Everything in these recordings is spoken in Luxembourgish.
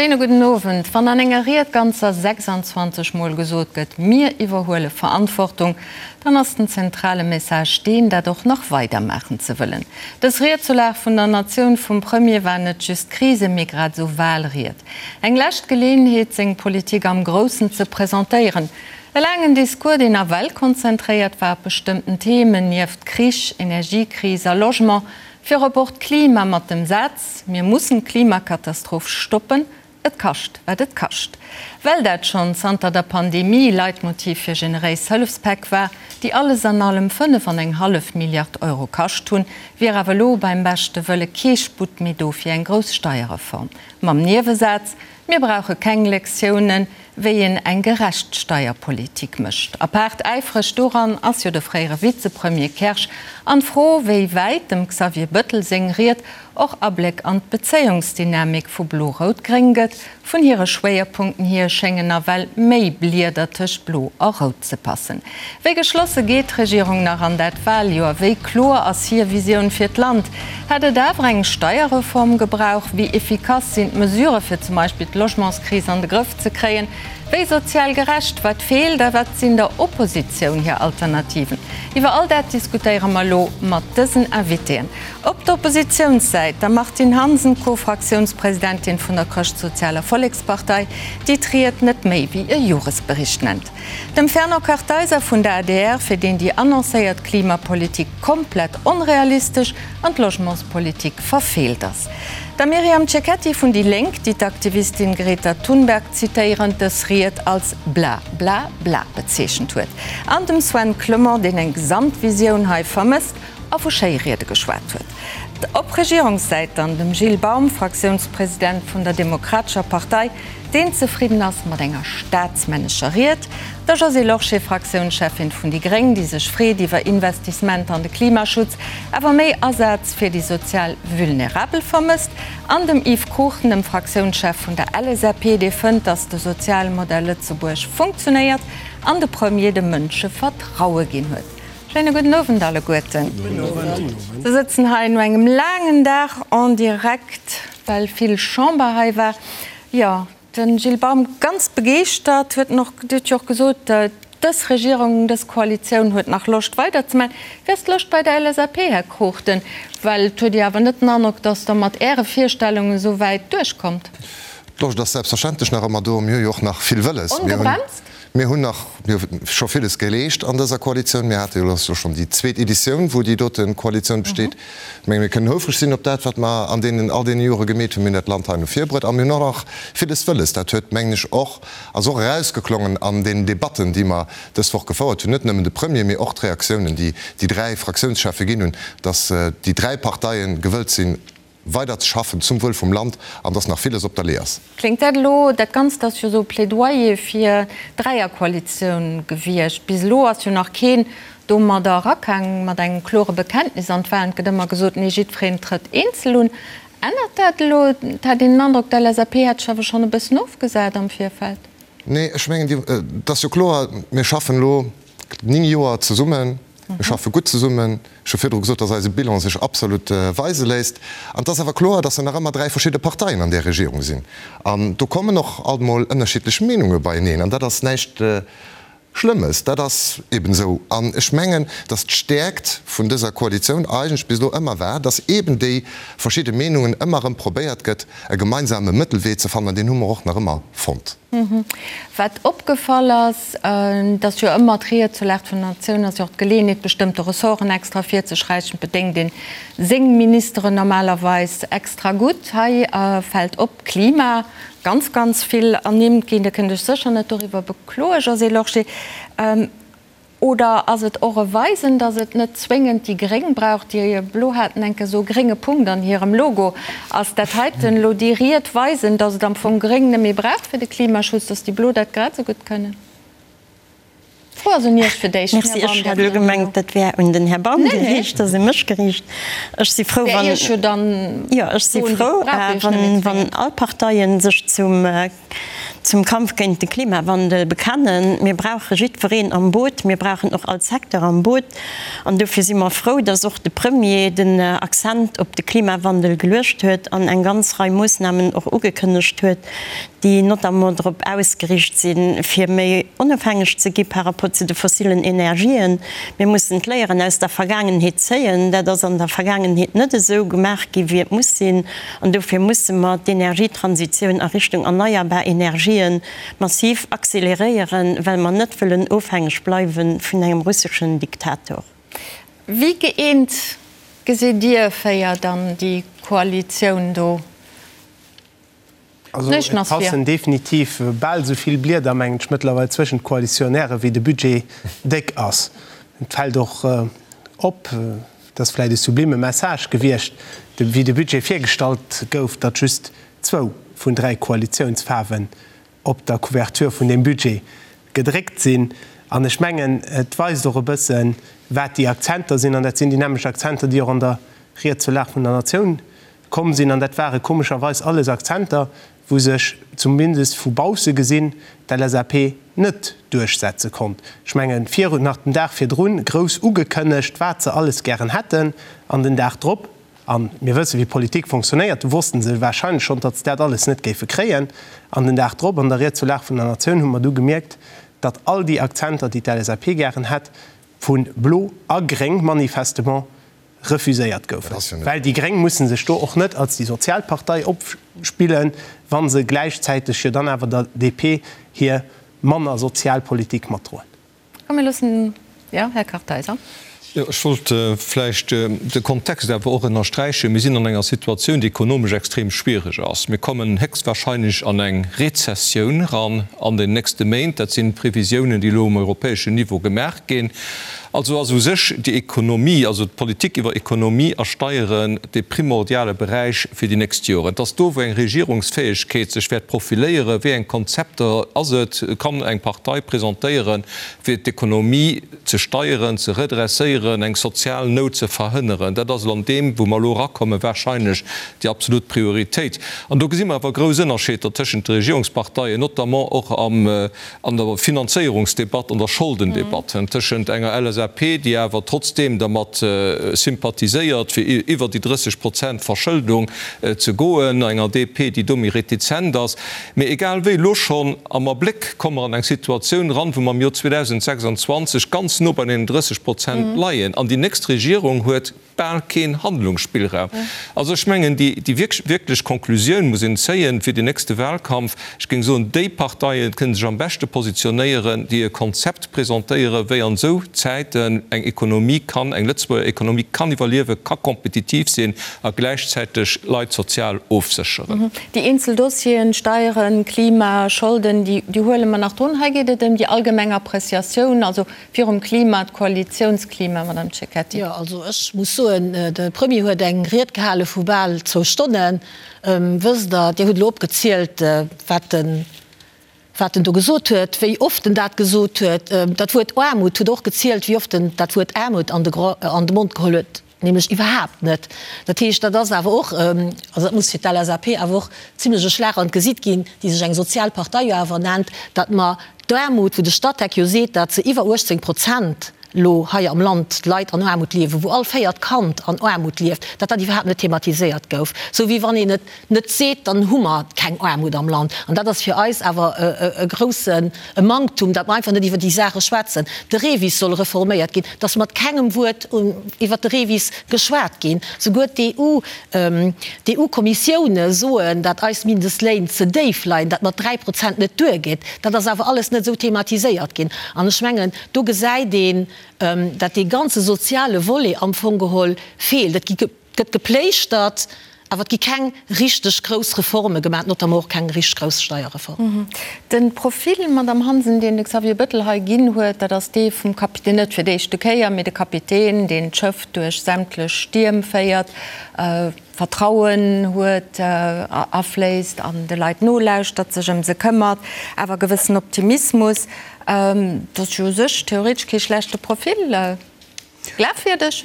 Schéine gudden Owend. Wann an enger Ried ganzer 26 Mol gesot gëtt, mir iwwerhuele Verantwortung, dann ass den zentrale Message deen, dat och nach weider maachen ze wëllen. Dës Ried zur Lag vun der Natioun vum Premier war net just Krise mee grad esou Wahlried. Eng lescht Geleeënheet, seng Politik am Groussen ze presentéieren. E laangen Discours, deen nawell konzentréiert war op bestëmmten Themen, nieft Krich, Energiekris a Logement, Virop och d'Klima mat dem Saz, Mir mussen d'Klimakatastroph stoppen, et kascht wat et kascht. Well dat schonn zanter der Pandemie Leitmotiv fir generéis Hëllefspäck war, déi alles an allem 5 an eng hallef Milliard Euro kascht hunn, wier awer elo beim beschte Wëlle kee Sputt méi do fir eng grouss Steierreform. Mam Niewesaz, Mir brauche keng Lektiounen, wéi een eng gerecht Steierpolitik mécht. Apaart äifreg doran ass jo de fréiere Vizepremier Kersch. An d'Fro, wéi wäit dem Xavier Bëttel seng Ried och Abléck an d'Bezéiungsdynamik vu Blo-Rout-Gréng gëtt, vun hire Schwéierpunkten hier schéngen nawell méi Blieder tëscht Blo a Rout ze passen. Wéi geschlosse geet d'Regierung nach an dat Waljoer? Wéi kloer ass hir Visioun fir d'Land? Hätt et awer eng Steierreform gebrauch? Wéi efficace sinn d'Mesurë fir zum Beispill d'Logementskris an de Grëff ze kréien? Wéi sozial gerecht? Wat feelt a wat sinn der Oppositioun hir Alternativen? Iwwer all dat diskutéiere mer elo mat dësen Invitéen. Op der Oppositiounssäit der Martine Hansen, Co-Fraktiounspresidentin vun der Chrëschtsozialer Vollekspartei, déi d'Ried net méi wéi e Joresbericht nennt. Dem Fernand Kartheiser vun der adr, fir deen déi annoncéiert Klimapolitik komplett onrealistesch an d'Logementspolitik verfeelt ass. Der Myriam Cecchetti vun déi Lénk, déi d'Aktivistin Greta Thunberg zitéierend dës Ried als bla bla bla bezeechent huet. An dem Sven Clement, deen eng Gesamtvisioun hei vermësst a vu Schéiriede geschwat huet. Op Regierungssäit dann dem Gilles Baum, Fraktiounspresident vun der Demokratescher Partei, deen zefridden ass mat enger staatsmännescher Ried, der Josée Lorsché, Fraktiounscheffin vun déi gréng, déi sech freet iwwer Investissementer an de Klimaschutz, awer méi Asaz fir déi sozial Vulnerabel vermësst, an dem Yves Cruchten, dem Fraktiounschef vun der LSAP, dee fënnt, datt de Sozialmodell Lëtzebuerg funktionéiert an de Premier de Mënsche Vertraue ginn huet. Schéine gudden Owend alleguerten. Se sëtzen hei no engem laangen Dag en direct, well vill Chamber hei war. Jo, de Gilles Baum ganz begeeschtert, huet en och, Dir hutt jo och gesot, dës Regierung, dës Koalitioun huet nach Loscht weiderzemaachen. Wéi ass d'Loscht bei der LSAP, Här Cruchten? Well et huet ee awer net den Androck, datt Der mat Äre Virstellungen esou wäit duerchkommt. D'Loscht ass selbstverständlech nach ëmmer do. Mir hu jo och nach vill wëlles. Ongebremst? Mir hunn nach, mir hu scho villes geleescht an dëser Koalitioun. Mir hate jo elo schonn déi zweet Editioun, wou déi dote Koalitioun besteet. Ech menge mir kënnen houfreg sinn op dat, wat mer an deenen, all deene Jore gemeet hunn. Mir hunn dat Land hei no vir bruet a mir hunn och nach villes wëlles. Dat huet, mengen ech, och, ass och erausgeklongen an deenen Debatten, déi mer dës Woch gefouert hunn, net nëmmen de Premier, mee och d'Reaktiounen, déi déi dräi Fraktiounscheffe ginn hunn, dass déi dräi Parteie gewëllt sinn, weider ze schaffen zum Wuel vum Land an dass nach villes op der Lee ass. Kléngt dat elo, dat Ganzt ass jo esou e Plädoyer fir d'Dräierkoalitioun gewiescht. Bis elo ass jo nach keen domadder erakaang mat engem klore Bekenntnis an d'Wahlen. Et gëtt ëmmer gesot, nee, jiddwereen trëtt eenzel un. Ännert dat elo? Et hat een den Androck, d'LSAP hätt sech awer schonn e bëssen ofgesat am Virfeld. Nee, ech mengen, et ass jo kloer, mir schaffen elo 9 Joer zesummen, mir schaffe gutt zesummen. Ech hu virdru gesot, dass eise Bilan sech absolut weise léisst. An et ass awer kloer, dass nach ëmmer 3 verschidde Parteien an där Regierung sinn. An do kommen och alt emol ënnerschiddlech Meenunge beieneen. An dat ass näischt Schlëmmes, dat ass eben esou. An ech mengen, dass d'Stäerkt vun dëser Koalitioun eigentlech bis elo ëmmer war, dass eben déi verschidde Meenungen ëmmer erëm probéiert gëtt, e gemeinsame Mëttelwee ze fannen. An deen hu mer och nach ëmmer fonnt. Wat opgefall ass, et ass jo ëmmer d'Ried zur Lag vun der Natioun, ass jo och d'Geleeënheet, bestëmmte Ressorten extra ervirzeschräichen. Et bedéngt een seng Ministeren normalerweis extra gutt. Hei fält op, Klima, ganz, ganz vill ernimmt ginn. Dir kënnt Iech sécher net doriwwer bekloen, Josée Lorsché. Oder ass et och e Weisen, datt et net zwéngend déi Gréng brauch? Déi Blo haten enke sou e grénge Punkt an hirem Logo. Ass dat heiten elo déi Ried weisen, datt et am Fong Gréng net méi brauch fir de Klimaschutz, datt déi Blo dat grad esou gutt kënnen? D'Fro ass un Iech fir d'éischt, Här Merci, ech hat elo gemengt, dat wär un den Här Baum geriicht, ass u mech geriicht. Ech si frou, wann, jo, ech si frou, wann all Parteien sech zum. zum Kampf géint de Klimawandel bekennen. Mir brauche jiddwereen am Boot, mir brauchen och all Secteur am Boot. An dofir si mer frou, dass och de Premier den Accent op de Klimawandel geluecht huet an eng ganz Rei Moossnamen och ugekënnegt huet, déi notamment drop ausgeriicht sinn, fir méi onofhängeg ze gi par rapport zu de fossilen Energien. Mir mussen d'Léieren aus der Vergaangenheet zéien. Dat ass an der Vergaangenheet net esou gemaach gi wéi et muss sinn. An dofir musse mer d'Energietransitioun a Richtung erneierbar Energien massiv acceleréieren, well mer net wëllen ofhängeg bleiwe vun engem russeschen Diktator. Wéi gëeent gesitt Dir 4 dann déi Koalitioun do? Also et passen definitiv bal esou vill Blieder, mengen ech, mëttlerweil zwëschent d'Koalitionäre wéi de Budget déck ass. Et fält och op, et ass vläicht e sublime Message gewiescht, wéi de Budget virgestallt gouf, datt just zwou vun 3 Koalitiounsfaarwen op der Couverture vun deem Budget gedréckt sinn. An ech mengen, et weist och e bëssen, wat déi Akzenter sinn. An dat sinn déi nämmlecht Akzenter, déi och an der Ried zur Lag vun der Natioun komm sinn. An dat ware komescherweis alles Akzenter, wou sech, zumindest vu bausse gesinn, d'LSAP net duerchsetze konnt. Ech mengen, virun, nach den Dag virdrun grouss ugekënnegt, wat se alles gären hätten, an den Dag drop, a mir wëssen, wéi Politik fonctionnéiert, do wosste se wahrscheinlech schonn, datt se dat alles net géife kréien, an den Dag drop an der Ried zur Lag vun der Natioun hu mer du gemierkt, datt all déi Akzenter, déi d'LSAP gären hätt, vu Blo a Gréng manifestement refuséiert goufen. Well déi Gréng musse sech do och net als déi sozial Partei opspillen, wa se gläichzäiteg jo dann awer der DP hir manner sozial Politik matdroen. Komm mir loossen, jo, Här Kartheiser. Jo, ech wollt vläicht de Kontext awer och ënnersträichen. Mir sinn an enger Situatioun, déi ekonomesch extrem schwierig ass. Mir kommen héchstwahrscheinlech an eng Rezessioun eran an den nächste Méint. Dat sinn d'Previsiounen, déi elo um europäeschen Niveau gemaach ginn. Also ass u sech déi Ekonomie, also d'Politik iwwer Ekonomie a Steieren, dee primordiale Beräich fir déi nächst Joren. Et ass do, wou eng Regierungsfäegkeet sech wäert profiléieren, wéi eng Konzepter ass et, kann eng Partei presentéieren, fir d'Ekonomie ze steieren, ze redresséieren, eng sozial Nout ze verhënneren. Dat ass elo an deem, wou mer elo erakommen, wahrscheinlech déi absolut Prioritéit. An do gesi mer awer grouss Ënnerscheeder tëschent de Regierungsparteien, notamment och am, an der Finanzéierungsdebatt, an der Scholdendebatt, tëschent enger LSAP, déi awer trotzdeem dermat sympathiséiert, fir iwwer déi 30 Prozent Verschëldung ze goen, enger DP, déi do méi retizent ass. Mee egal wéi, elo schonn am Abléck komme mer an eng Situatioun eran, wou mer am Joer 2026 ganz no bei deenen 30 Prozent leien an déi nächst Regierung huet bal keen Handlungsspillraum. Also ech mengen, déi wierklech Konklusioun muss een zéien fir den nächste Wahlkampf. Ech géing soen, déi Parteien kënnen sech am beschte positionéieren, déi e Konzept presentéieren, wéi an esou Zäiten eng Ekonomie kann, eng Lëtzebuerger Ekonomie kann iwwerliewen, ka kompetitiv sinn a gläichzäiteg Leit sozial ofsécheren. Déi eenzel Dossieren, Steieren, Klima, Scholden, déi huele mer nach drun. Hei geet et ëm déi allgemeng Appreciatioun, also virum Klima, d'Koalitiounsklima, Madame Cecchetti. Jo, also ech muss soen, de Premier huet eng Ried gehale vu bal zwou Stonnen. Wësst Der, Dir hutt elo opgezielt, wat en, wat en do gesot huet, wéi oft en dat gesot huet. Dat Wuert Aarmut hutt Der och gezielt, wéi oft en dat Wuert Aarmut an de Mond geholl huet. Nämlech iwwerhaapt net. Dat heescht, dat ass awer och, also dat muss fir d'LSAP awer och zimlech e Schlag an d'Gesiit ginn, déi sech eng sozial Partei jo awer nennt, datt mer d'Aarmut, wou de Statec jo seet, datt se iwwer 18 Prozent elo hei am Land d'Leit an Aarmut liewen, wou all véiert Kand an Aarmut lieft, datt dat iwwerhaapt net thematiséiert gouf. Sou wéi wann een et net seet, dann hu mer keng Aarmut am Land. An dat ass fir eis awer e groussen Manktum, datt mer einfach net iwwer déi Saache schwätzen. De REVIS soll reforméiert ginn, et ass mat kengem Wuert iwwer de REVIS geschwat ginn. Souguer d'EU, d'EU-Kommissioune soen, datt eis Mindestléin ze déif leien, datt mat 3 Prozent net duergeet. Dat ass awer alles net esou thematiséiert ginn. An ech mengen, do gesäit een, datt dee ganze soziale Volet am Fong geholl feelt. Et gi. Et gëtt gepléischtert, awer et gi keng richteg grouss Reforme gemaach, notamment och keng richteg grouss Steierreform. De Profil, Madamm Hansen, deen de Xavier Bettel hei ginn huet, dat ass dee vum Kapitän, net fir d'éischte Kéier, mee de Kapitän, deen d'Schëff duerch sämtlech Stierm féiert, Vertrauen huet, afléisst an de Leit nolauschtert, sech ëm se këmmert, awer e gewëssen Optimismus. Dat ass jo u sech theoretesch kee schlechte Profil. Glafwierdeg?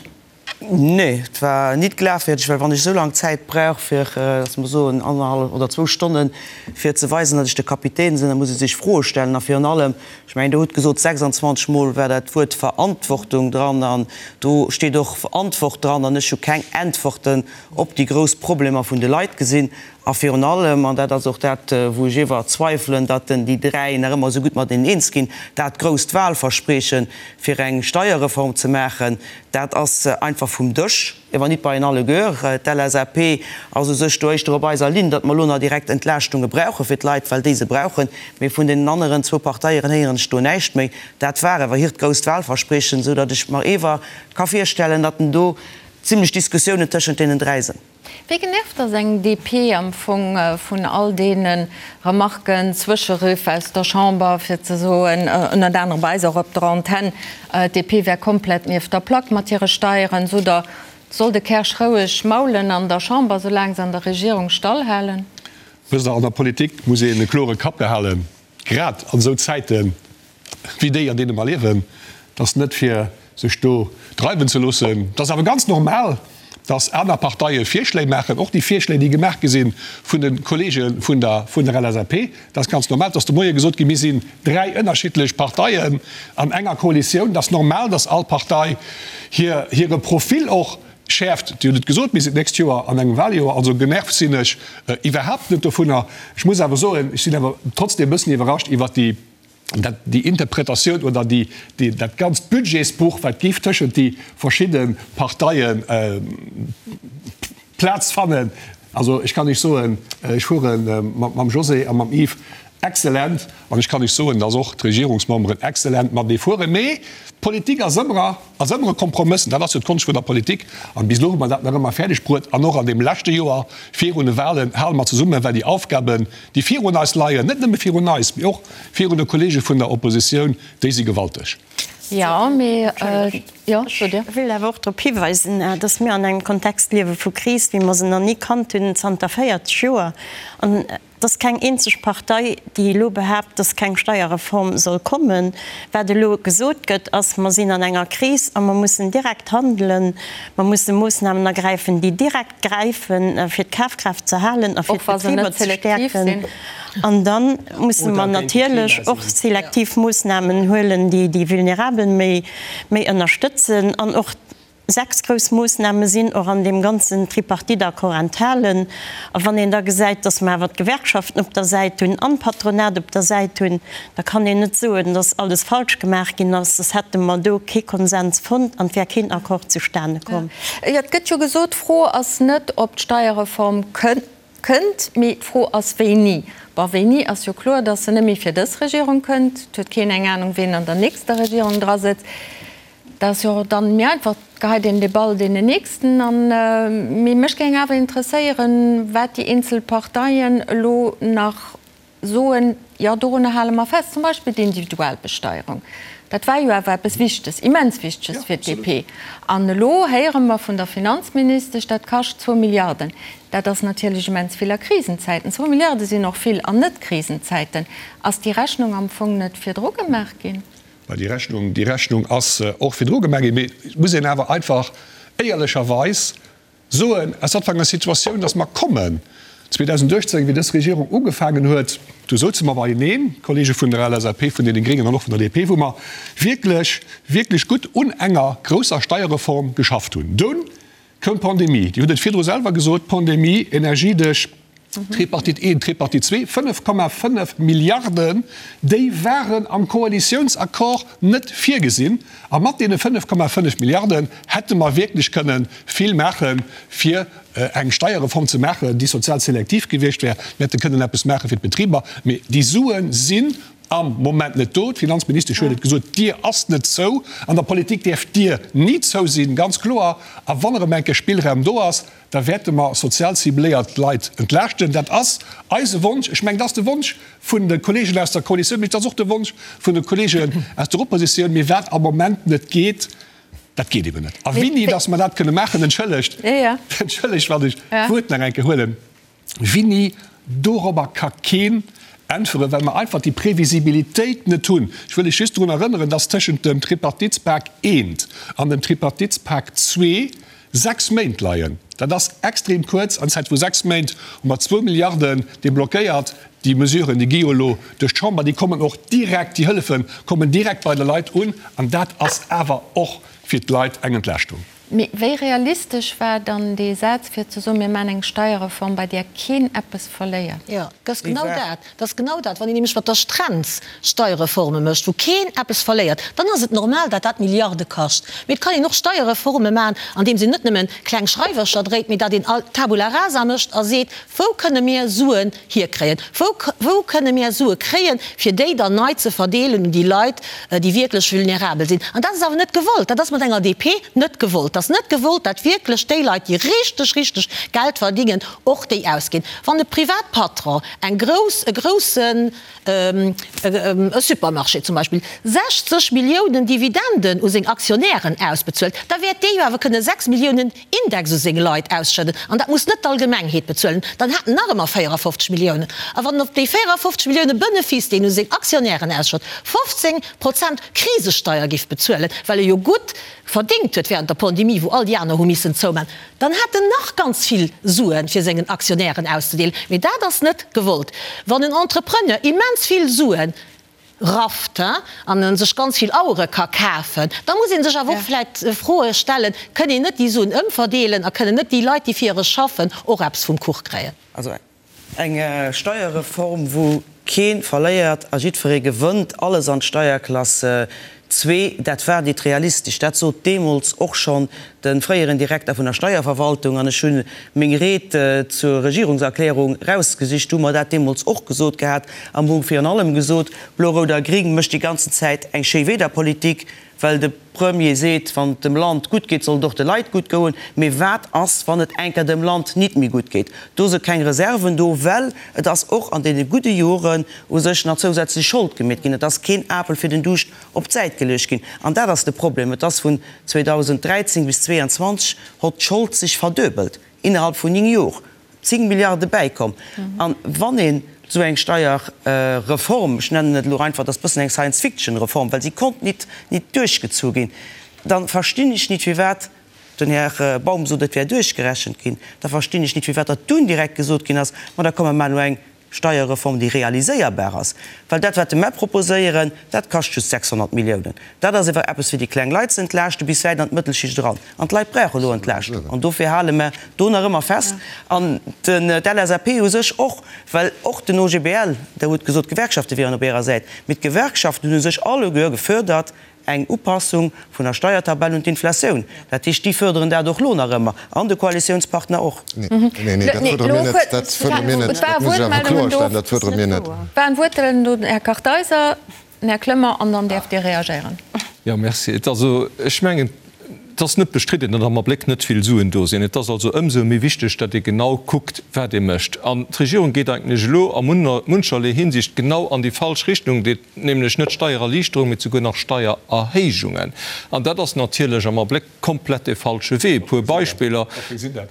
Nee, et war nit glafwierdeg, well wann ech esou laang Zäit brauch fir, lass mer soen, annerhallef oder zwou Stonnen, fir ze weisen, datt ech de Kapitän sinn, da muss ee sech Froe stellen. A virun allem, ech mengen, Der hutt gesot, 26 Mol war dat Wuert Verantwortung dran an do steet och Antwort dran an ech hu keng Äntworten op déi grouss Problemer vun de Leit gesinn. A virun allem, an dat ass och dat, wou ech iewer zweifelen, datt en déi dräi nach ëmmer esou gutt mateneen eens ginn, dat grousst Wahlverspreeche fir eng Steierreform ze maachen, dat ass einfach vum Dësch, iewer nit bei en alleguer. D'LSAP ass u sech do éischter op eiser Linn, datt mer elo nach direkt Entlaaschtunge brauche fir d'Leit, well déi se brauchen. Mee vun deenen aneren zwou Parteieren héieren ech do näischt méi. Dat war ewer hiert grousst Wahlverspreechen, esou datt ech mer ewer ka virstellen, datt en do zimlech Diskussiounen tëschent deenen dräi sënn. Wéi genervt ass eng DP am Fong vun all deene Remarken, Zwëscheriff aus der Chamber, fir ze soen, ënnert anerem bei eis och op der Antenn, d'DP wär komplett nieft der Plack mat hire Steieren. Sot Der, soll de Kersch roueg maulen an der Chamber, soulaang se an der Regierung stallhalen? Wësst Der, an der Politik muss een e klore Kapp behalen, grad an esou Zäiten wéi déi, an deene mer liewen. Et ass net fir sech do dreiwen ze loossen. Et ass awer ganz normal, datt aner Parteie Virschléi maachen, och déi Virschléi, déi gemaach gi si vun de Kollege vun der vun der LSAP. Et ass ganz normal. Et ass de Moie gesot ginn, mir sinn dräi ënnerschiddlech Parteien an enger Koalitioun. Et ass normal, datt all Partei hir hire Profil och schäerft. Dir hutt et gesot, mir sinn d'nächst Joer an engem Wahljoer. Also genervt sinn ech iwwerhaapt net dovunner. Ech muss awer soen, ech sinn awer trotzdem e bëssen iwwerrascht iwwert déi, dat, déi Interpretatioun oder déi, déi, dat ganzt Budgetsbuch, wat géif tëschent déi verschidde Parteie Plaz fannen. Also ech kann Iech soen, ech fuere mam José a mam Yves excellent an ech kann Iech soen, dass och d'Regierungsmemberen excellent matenee fueren. Mee d'Politik ass ëmmer, ass ëmmer e Kompromëss an dat ass jo d'Konscht vun der Politik. An bis elo hu mer dat nach ëmmer fäerdeg bruet an och an deem leschte Joer virun de Wahlen hale mer zesummen, well déi Aufgaben, déi virun eis leien, net nëmme virun eis, mee och virun de Kollege vun der Oppositioun, déi si gewalteg. Jo, mee, jo, sot Dir. Ech wéilt awer och drop hiweisen, dass mir an engem Kontext liewe vu Kris, wéi mer se nach ni kannt hunn zanter 40 Joer. An et ass keng eenzeg Partei, déi elo behaapt, dass keng Steierreform soll kommen. Wat elo gesot gëtt, ass, Mer sinn an enger Kris a mer mussen direkt handelen. Mer musse Moossnamen ergräifen, déi direkt gräifen, fir d'Kafkraaft ze halen a fir d'Betriber ze stäerken. An da musse mer natierlech och selektiv Moossnamen huelen, déi déi Vulnerabel méi ënnerstëtzen. An och sechs grouss Moossname sinn och an deem ganzen Tripartite-Accord enthalen. A wann een da gesäit, datt mer awer d'Gewerkschaften op der Säit hunn an d'Patronat op der Säit hunn, da kann een net soen, datt alles falsch gemaach ginn ass, soss hätte mer do kee Konsens fonnt an et wär keen Accord zustane komm. Jo, et gëtt jo gesot, d'Fro ass net, ob d'Steierreform kënnt, mee d'Fro ass, wéini. Bon, wéini ass jo kloer, datt se net méi fir dës Regierung kënnt. Et huet keen eng Anung, ween an der nächster Regierung drasëtzt. Dat ass jo dann méi einfach, et geheit een de Ball deenen Nächsten an. Mee mech géing awer interesséieren, wat déi eenzel Parteien elo nach soen, jo dorunner hale mer fest, zum Beispill d'Individualbesteierung, dat war jo awer eppes Wichteges, immens Wichteges fir d'DP. An elo héiere mer vun der Finanzministesch, dat kascht zwou Milliarden. Dat ass natierlech immens vill a Krisenzäiten. Zwou Milliarde sinn och vill an Net-Krisenzäiten. Ass déi Rechnung am Fong net virdru gemaach ginn? Mä déi Rechnung, déi Rechnung ass och virdru gemaach ginn. Mee et muss een awer einfach éierlecherweis soen, aus wat fir enger Situatioun dass mer kommen. 2018, wéi dës Regierung ugefaangen huet, do souze mer beieneen, d'Kollege vun der LSAP, vun deene Gréngen an och vun der DP, wou mer wierklech, wierklech gutt un enger grousser Steierreform geschafft hunn. Dunn koum d'Pandemie. Dir hutt et virdru selwer gesot, d'Pandemie, Energiedesch, Tripartite I, Tripartite ii, 5,5 Milliarden, déi waren am Koalitiounsaccord net virgesinn. A mat deene 5,5 Milliarden hätte mer wierklech kënne vill maachen, fir eng Steierreform ze maachen, déi sozial selektiv gewiescht wär. Mir hätte kënnen eppes maache fir d'Betriber. Mee déi Sue sinn am Moment net do. D'Finanzministesch huet et gesot, d'Dier ass net zou. An der Politik däerf d'Dier ni zou sinn, ganz kloer. A wann erëm eng Kéier Spillraum do ass, da wäerte mer sozial cibléiert Leit entlaaschten. Dat ass eise Wonsch. Ech mengen, dat ass de Wonsch vun de Kollegen aus der Koalitioun, mee et ass och de Wonsch vun de Kollegen aus der Oppositioun. Mee wat am Moment net geet, dat geet eben net. A wéini dass mer dat kënne maachen, entschëllegt, entschëllegt, wann ech d'Wuert nach eng Kéier huelen, Winni, dorobber ka keen. Äntweren, well mer einfach déi Previsibilitéit net hunn. Ech wëll lech just drun erënneren, dass tëschent dem Tripartitspak I an dem Tripartitspak ii sechs Méint leien. Dat ass extrem kuerz. An Zäit vu sechs Méint hu mer zwou Milliarden deblockéiert. Déi Mesuren, déi gi jo elo duerch d'Chamber, déi kommen och direkt, déi Hëllefe kommen direkt bei de Leit un. An dat ass awer och fir d'Leit eng Entlaaschtung. Mee wéi realistesch war dann dee Saz, fir ze soen, mir maachen eng Steierreform, bei där keen eppes verléiert? Jo, dat ass genau dat. Dat ass genau dat. Wann een nämlech mat der Strenz Steierreforme mécht, wou keen eppes verléiert, dann ass et normal, datt dat Milliarde kascht. Mee et kann een och Steierreforme maachen, andeems een net nëmmen kleng Schreiwercher dréit, mee datt een Tabula rasa mécht a seet, Wou kënne mir Suen hierkréien? Wou, wou kënne mir Sue kréien, fir déi dann nei ze verdeelen un déi Leit, déi wierklech vulnerabel sinn? An dat ass awer net gewollt. Dat ass mat enger DP net gewollt. Dat ass net gewollt, dat wierklech déi Leit, déi richteg, richteg Geld verdingen, och déi ausginn. Wann e Privatpatron eng grouss, e groussen, e Supermarché zum Beispill, 60 Milliounen Dividenden u seng Aktionären ausbezuelt, da wäert dee jo awer kënne 6 Milliounen Index u seng Leit ausschëdden, an dat muss net d'Allgemengheet bezuelen, dann hat en nach ëmmer 54 Milliounen. A wann en op déi 54 Millioune Benefice, déi en u seng Aktionnairen ausschëtt, 15 Prozent Krisesteier giff bezuelen, well e jo gutt verdéngt huet während der Pandemie, wou all déi aner hu missen zouman, dann hat en nach ganz vill Suen, fir sengen Aktionnairen auszedeelen. Mee dat ass net gewollt. Wann en Entrepreneur immens vill Suen rafft an en sech ganz vill Auere ka kafen, da muss ee sech awer och vläit Froe stellen, Kënn een net déi Suen ëmverdeelen a kënnen net déi Leit, déi fir e schaffen, och eppes vum Kuch kréien? Also eng Steierreform, wou kee verléiert a jiddweree gewënnt, alles an d'Steierklass zwee, dat war nit realistesch. Dat sot deemools och schonn de fréieren Direkter vun der Steierverwaltung, an ech hu meng Ried zur Regierungserklärung rausgesicht, do hu mer dat deemools och gesot gehat an hu virun allem gesot, Blo-Rout a Gring mécht déi ganzen Zäit eng Schéiwiederpolitik, well de Premier seet, wann et dem Land gutt geet, soll et och de Leit gutt goen. Mee wat ass, wann et enker dem Land nit méi gutt geet? Do se keng Reserven do, well et ass och an deene gudde Joren u sech nach zousätzlech Schold gemeet ginn. Et ass keen Apel fir den Duuscht op d'Säit geluecht ginn. An dat ass de Problem. Et ass vun 2013 bis 2022 hott d'Schold sech verduebelt, innerhalb vun 9 Jor 10 Milliarde bäikomm. An wann een esou eng Steierreform, ech nennen et elo einfach, dat ass bëssen eng Science-Fiction-Reform, well si konnt nit nit duerchgezu ginn, da verstinn ech nit firwat, den Här Baum sot et wär duerchgerechent ginn, da verstinn ech nit firwat datt dunn direkt gesot ginn ass, ma da komm mer maachen elo eng Steierreform, déi realiséierbar ass, well dat, wat de mer proposéieren, dat kascht just 600 Milliounen. Dat ass ewer eppes, fir déi kleng Leit ze entlaaschten, bis wäit an d'Mëttelschicht eran. An d'Leit brauche elo Entlaaschtung. An dofir hale mer do nach ëmmer fest. An d'LSAP u sech och, well och den OGBL, Der hutt gesot, d'Gewerkschafte wieren op Ärer Säit, mee d'Gewerkschaften hunn u sech alleguer gefuerdert, Eng Upassung vun der Steiertabell un d'Inflatioun. Dat heescht, déi fërderen dat och lo nach ëmmer, an de Koalitiounspartner och. Nee, nee, dat fërdere mir net. Dat fërdere mir net. Dat muss ech awer kloerstellen, dat fërdere mir net. Waren Wuertelen do, Här Kartheiser, den Här Clement, an dann däerft Dir reagéieren. Jo, merci. Et ass also, ech mengen, et ass net bestridden, datt am Abléck net vill Suen do sinn. Et ass also ëmsou méi wichteg, datt ee genau kuckt, wat ee mécht. An d'Regierung geet eigentlech elo a muncherlee Hinsicht genau an déi falsch Richtung. Nämlech net Steiererliichterung, mee souguer nach Steiererhéijungen. An dat ass natierlech am Abléck komplett dee falsche Wee. E puer Beispiller,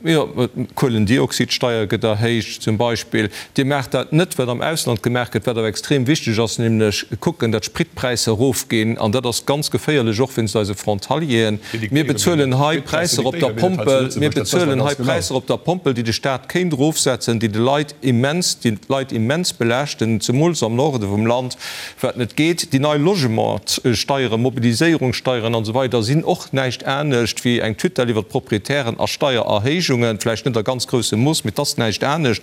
Jo, d'Kuelendioxidsteier gëtt erhéicht zum Beispill. Dir maacht dat net, wat am Ausland gemaach gëtt, wat awer extrem wichteg ass, nämlech kucken, datt d'Spritpräisser erofginn. An dat ass ganz geféierlech, och wéinst eise Frontalieren. Mir bezuelen hei Präisser op der Pompel, mir bezuelen hei Präisser op der Pompel, déi de Staat kéint erofsetzen, déi de Leit immens, déi d'Leit immens belaaschten, zemools am Norde vum Land, wat net geet. Déi nei Logementssteieren, Mobiliséierungssteieren an esou weider sinn och näischt anescht wéi eng Tutelle iwwer d'Proprietären a Steiererhéijungen, vläicht net a ganz groussem Mooss, mee et ass näischt anescht.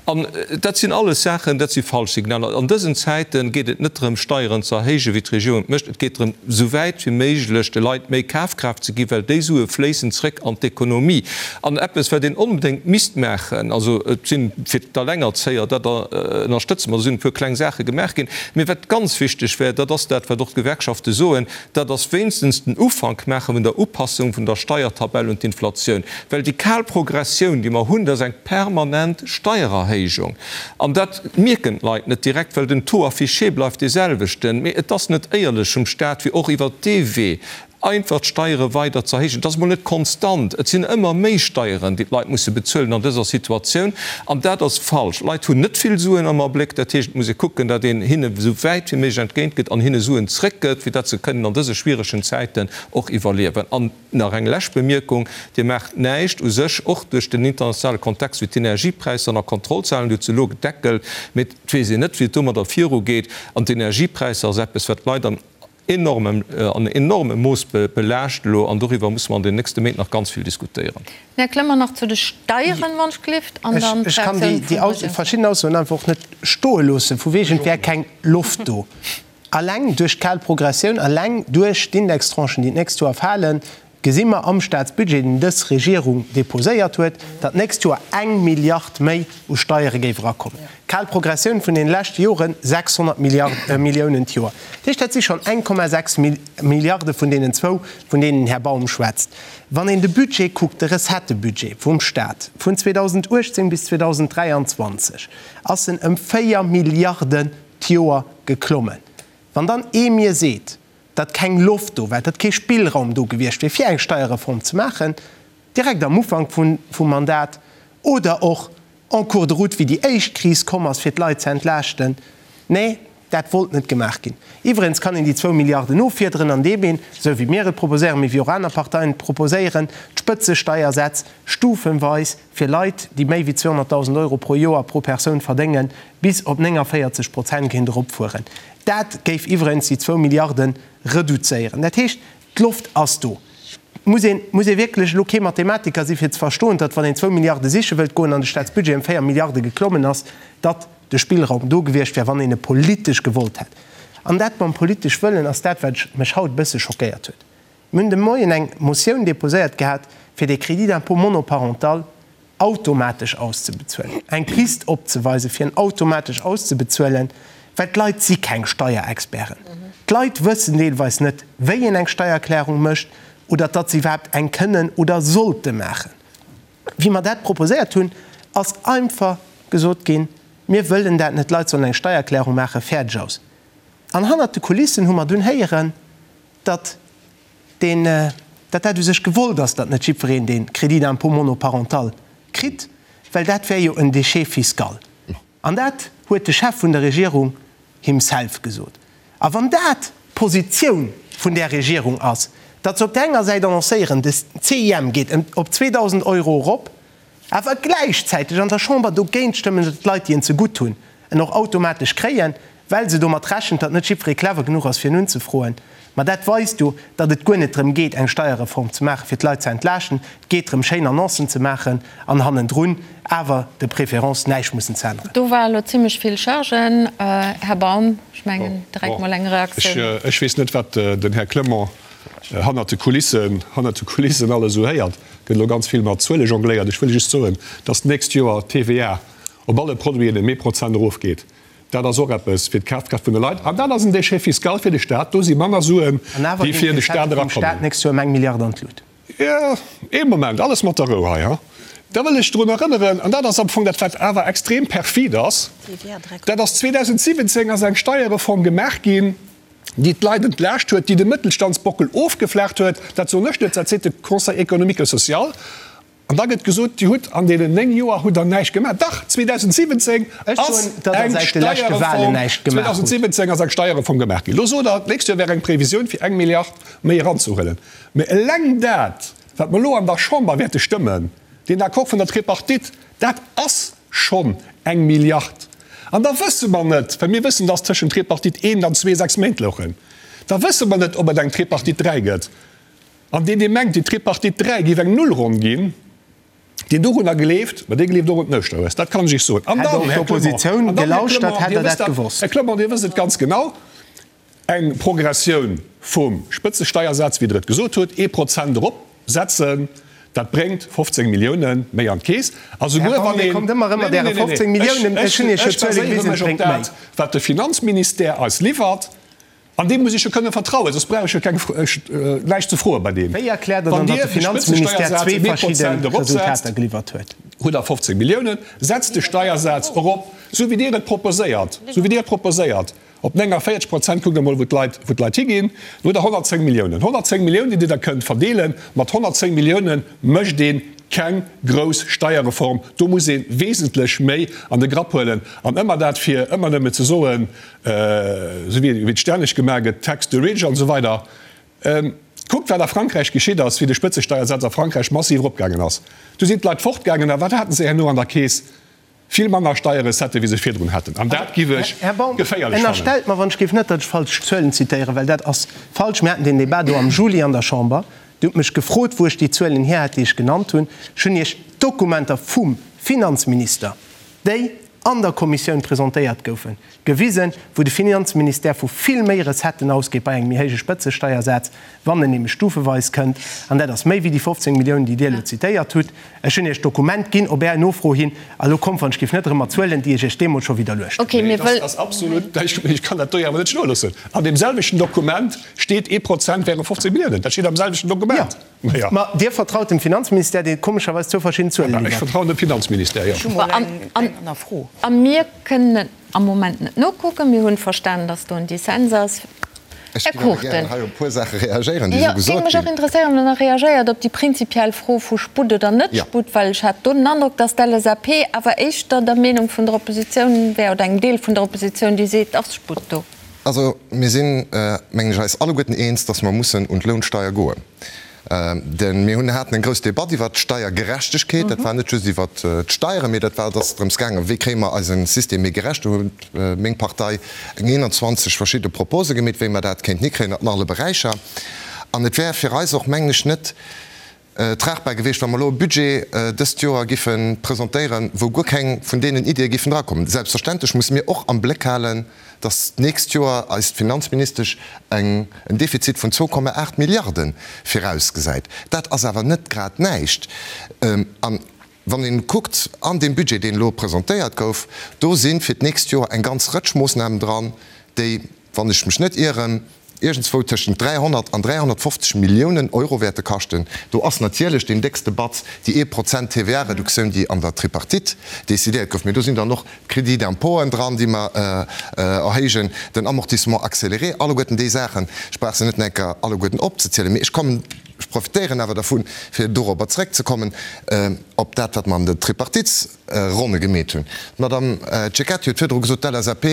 An dat sinn alles Saachen, dat si falsch Signaler. An dësen Zäite geet et net drëm, Steieren ze erhéijen, wéi d'Regierung et mécht. Et geet drëm, esou wäit wéi méiglech de Leit méi Kafkraaft ze ginn, well déi Sue fléissen zréck an d'Ekonomie. An eppes, wat een onbedéngt misst maachen, also et sinn fir d'Alengerzéier, dat ënnerstëtze mer, do sinn e puer kleng Saache gemaach ginn, mee wat ganz wichteg wär, dat ass dat, wat och d'Gewerkschafte soen, dat ass wéinstens den Ufank maache vun der Upassung vun der Steiertabell un d'Inflatioun. Well déi kal Progressioun, déi mer hunn, dat ass eng permanent Steiererhéijung. An dat mierken d'Leit net direkt, well den Taux affiché bleift dee selwechten. Mee et ass net éierlech vum Stat, fir och iwwert dee Wee. Einfach d'Steiere weider ze erhéijen, dat ass emol net konstant, et sinn ëmmer méi Steieren, déi d'Leit musse bezuelen an dëser Situatioun, an dat ass falsch. D'Leit hunn net vill Suen am Abléck, dat heescht, et muss ee kucken, datt een hinne esou wäit wéi méiglech entgéint gëtt an hinne Suen zréckgëtt, fir datt se kënnen an dëse schwieregen Zäiten och iwwerliewen. An nach eng lescht Bemierkung, Dir maacht näischt u sech, och duerch den internationale Kontext, fir d'Energiepräisser ënner Kontroll ze halen. Dir hutt se elo gedeckelt, mee et weess een net, wéi et domadder virugeet. An d'Energiepräisser ass eppes, wat d'Leit an enormem, an enormem Mooss belaascht elo. An doriwwer musse mer an den nächste Méint nach ganz vill diskutéieren. Här Clement, nach zu de Steieren, wann ech gelift, an dann Ech kann déi verschidden Aussoen einfach och net stoe loossen, vu wegen et wär keng Loft do. Alleng duerch d'kal Progressioun, alleng duerch d'Indextranchen, déi d'nächst Joer falen, gesi mer am Staatsbudget, deen dës Regierung deposéiert huet, datt d'nächst Joer eng Milliard méi u Steiere géif erakommen. Kal Progressioun vun deene leschte Joren, 600 Milliounen d'Joer. Dat heescht, dat si schonn 1,6 Milliarde vun deenen zwou, vun deenen den Här Baum schwätzt. Wann een de Budget kuckt, de Recettëbudget vum Staat vun 2018 bis 2023, ass en ëm 4 Milliarden d'Joer geklommen. Wann dann ee mir seet, datt keng Loft do war, datt kee Spillraum do gewiescht wier, fir eng Steierreform ze maachen, direkt am Ufank vum Mandat oder och en cours de route, wéi déi éischt Kris komm ass, fir d'Leit ze entlaaschten, nee, dat wollt net gemaach ginn. Iwwregens kann een déi zwou Milliarden offiederen, andeem een, esou wéi mir et proposéieren, mee wéi och aner Parteien et proposéieren, d'Spëtzesteiersätz stufenweis fir Leit, déi méi wéi 200.000 Euro pro Joer pro Persoun verdéngen, bis op 49 Prozent kéint eropfueren. Dat géif iwwregens déi zwou Milliarde reduzéieren. Dat heescht, d'Loft ass do. Et muss een, muss ee wierklech elo kee Mathematiker si fir ze verstoen, datt wann een zwou Milliarde siche wëllt goen an de Staatsbudget ëm 4 Milliarde geklommen ass, datt de Spillraum do gewiescht wär, wann een e politesch gewollt hätt. An dat mam politesch wëllen ass dat, wat mech haut e bësse schockéiert huet. Mir hunn de Moien eng Motioun déposéiert gehat, fir dee Crédit d'impôt monoparental automatesch auszebezuelen, eng Pist opzeweisen, fir en automatesch auszebezuelen, well d'Leit si keng Steierexperten. D'Leit wëssen deelweis net, wéi een eng Steiererklärung mécht oder datt se iwwerhaapt eng kënnen oder sollte maachen. Wéi mer dat proposéiert hunn, ass einfach gesot ginn, Mir wëllen dat net, d'Leit sollen eng Steiererklärung maachen, fäerdeg aus. An hannert de Kulissen hu mer dunn héieren, datt deen, datt dat u sech gewollt ass, datt net jiddwereen dee Crédit d'impôt monoparental kritt, well dat wär jo en Déchet fiscal. An dat huet de Chef vun der Regierung himself gesot. A wann dat d'Positioun vun där Regierung ass, datt se op där enger Säit annoncéieren, de CIM geet ëm op 2.000 Euro erop, awer gläichzäiteg an der Chamber dogéint stëmmen, datt d'Leit, déi en zegutt hunn, en och automatesch kréien, well se domat rechent, datt net jiddweree clever genuch ass, fir en unzefroen. Ma dat weist jo, datt et guer net drëm geet, eng Steierreform ze maachen, fir d'Leit ze entlaaschten. Et geet drëm, schéin Annoncen ze maachen an hannendrun awer de préférence näischt mussen ze änneren. Do war elo zimlech vill Chargen, Här Baum. Ech mengen, direkt mol eng Reaktioun. Ech weess net, wat den Här Clement hannert de Kulissen, hannert de Kulissen alles esou héiert. Gëtt elo ganz vill mat Zuele jongléiert. Ech wëll just soen, dass d'nächst Joer d'TVA op alle Produiten ëm ee Prozent erofgeet. Dat ass och eppes fir d'Kafkraaft vun de Leit. An dat ass en Déchet fiscal fir de Staat. Do si manner Suen, déi fir de Staat erakommen. Jo, ee Moment, alles mat der Rou hei, ha. Da wëll ech drun erënneren, an dat ass am Fong dat, wat awer extrem perfid ass, dat ass, 2017 ass eng Steierreform gemaach ginn, déi d'Leit entlaascht huet, déi de Mëttelstandsbockel ofgeflaacht huet. Dat soen ech net, dat seet de Conseil économique et social. An da gëtt gesot, Dir hutt an deenen 9 Joer hutt Der näischt gemaach. Dach, 2017 ass eng Steierreform, 2017 ass eng Steierreform gemaach ginn. Elo sot Der, d'nächst Joer wär eng Previsioun fir eng Milliard méi eranzehuelen. Mä eleng dat, wat mer elo an der Chamber wäerte stëmmen, deen Accord vun der Tripartite, dat ass schonn eng Milliard. An da wësse mer net, well mir wëssen, dass tëschent Tripartite I an II 6 Méint louchen, da wësse mer net, ob et eng Tripartite III gëtt. An deen, dee mengt, déi Tripartite III géif eng Nullronn ginn, deen dorunner gleeft, ma dee gleeft och un den Ouschterhues, dat kann ech Iech soen. An dann, Här Clement, an dann, Här Clement, Dir wësst dat, Här Clement, Dir wësst et ganz genau, eng Progressioun vum Spëtzesteiersaz, wéi Der et gesot hutt, ee Prozent eropsetzen, dat bréngt 15 Milliounen méi an d'Keess. A souguer wann een, nee, nee, nee, nee, ech, ech baséiere mech op dat, wat de Finanzministère eis liwwert. An deem muss ech jo kënne vertrauen, soss brauch ech jo keng, näischt ze froe bei deem. Wéi erkläert Der dann, Wann datt Dir de de Finanzministère Spëtzesteiersaz zwee ëm ee verschidde Prozent eropsetzt, Resultater geliwwert huet? hutt Der 15 Milliounen. Setzt de Steiersaz erop, esou wéi Dir et proposéiert, esou wéi Dir et proposéiert. Op 49 Prozent, kuckt emol wou d'Leit, wou d'Leit higinn, do hutt Der 110 Milliounen. 110 Milliounen, déi Dir da kënnt verdeelen. Mat 110 Milliounen mécht ee keng grouss Steierreform. Do muss ee wesentlech méi an de Grapp huelen. An ëmmer dat, fir ëmmer nëmme ze soen, esou wéi et stänneg gemaach gëtt, Tax the rich an esou weider. Kuckt, wat a Frankräich geschitt ass, wéi de Spëtzesteiersaz a Frankräich massiv eropgaangen ass. Du sinn d'Leit fortgaangen a wat haten se herno an der Keess? Vill manner Steierrecetten, wéi se virdrun haten. An dat giff ech Här Baum, geféierlech fannen. ënnerstellt mer wann ech géif net, datt ech falsch Zuelen zitéieren, well dat ass falsch. Mir haten deen Débat do am Juli an der Chamber. Dir hutt mech gefrot, wou ech déi Zuelen hier hätt, déi ech genannt hunn. Ech hunn Iech d'Dokumenter vum Finanzminister, déi an der Kommissioun presentéiert goufen, gewisen, wou de Finanzministère vu vill méi Recetten ausgeet bei engem méi héije Spëtzesteiersaz, wann en nämlech stufeweis kënnt, an dat ass méi wéi déi 15 Milliounen, déi Dir elo zitéiert hutt. Ech hunn Iech d'Dokument ginn op Är Nofro hin, a lo kommt, wann ech géif, net erëm mat Zuelen, déi ech Iech deemools scho widderluecht hunn. Okay, mir wëll. Dat ass absolut, ech kann dat do jo awer net stoe loossen. An deem selwechten Dokument steet, ee Prozent wäre 15 Milliounen. Dat steet am selwechten Dokument. Jo, ma Dir vertraut dem Finanzministère, dee komescherweis zwou verschidden Zuele liwwert. Ech vertrauen dem Finanzministère, jo. Ech hu mol eng aner Fro. A mir kënnen et am Moment net nokucken. Mir hunn verstanen, dass do en Dissens ass. Ech Här géif awer Cruchten. gären hei op e puer Saache reagéieren, déi Jo, esou géing gesot mech och ginn. interesséieren, ob Der nach reagéiert op déi prinzipiell Fro vu Sputt oder net Jo. Sputt, well ech hat do den Androck, dass d'LSAP awer éischter der Meenung vun der Oppositioun wär oder engem Deel vun der Oppositioun, déi seet, et ass Sputt do. Also mir sinn, mengen ech, eis alleguerten eens, dass mer mussen un d'Lounsteier goen. Denn mir hunn haten eng grouss Debatt iwwert d'Steiergerechtegkeet. Dat war net just iwwert d'Steieren, mee dat war, et ass drëms gaangen, wéi kréie mer eise System méi gerecht. Do huet meng Partei eng 21 verschidde Propose gemeet, wéi mer dat kéinten hikréien an alle Beräicher. An et wär fir eis och, mengen ech, net tragbar gewiescht, wa mer elo e Budget dëst Joer giffe presentéieren, wou guer keng vun deenen Iddie giffen drakommen. Selbstverständlech musse mir och am Bléck halen, dass d'nächst Joer eis d'Finanzministesch eng en Defizit vun 2,8 Milliarde virausgesäit. Dat ass awer net grad näischt. An wann ee kuckt an deem Budget, deen elo presentéiert gouf, do si fir d'nächst Joer eng ganz Rëtsch Moossnamen dran, déi, wann ech mech net ieren, iergendswou tëschent 300 an 350 Milliounen Euro wäerte kaschten. Do ass natierlech deen déckste Batz déi ee Prozent TVA-Reduktioun, déi an der Tripartite decidéiert gouf. Mee do sinn dann och d'Crédits d'impôten dran, déi mer erhéijen, den Amortissement accéléré, alleguerten déi Saachen. Ech brauch se net nach eng Kéier alleguerten opzezielen, mee ech kommen, ech profitéieren awer dervun, fir dorobber zrëckzekommen, op dat, wat mer an den Tripartite, Ronne gemeet hunn. D'Madame Cecchetti huet virdru gesot, d'LSAP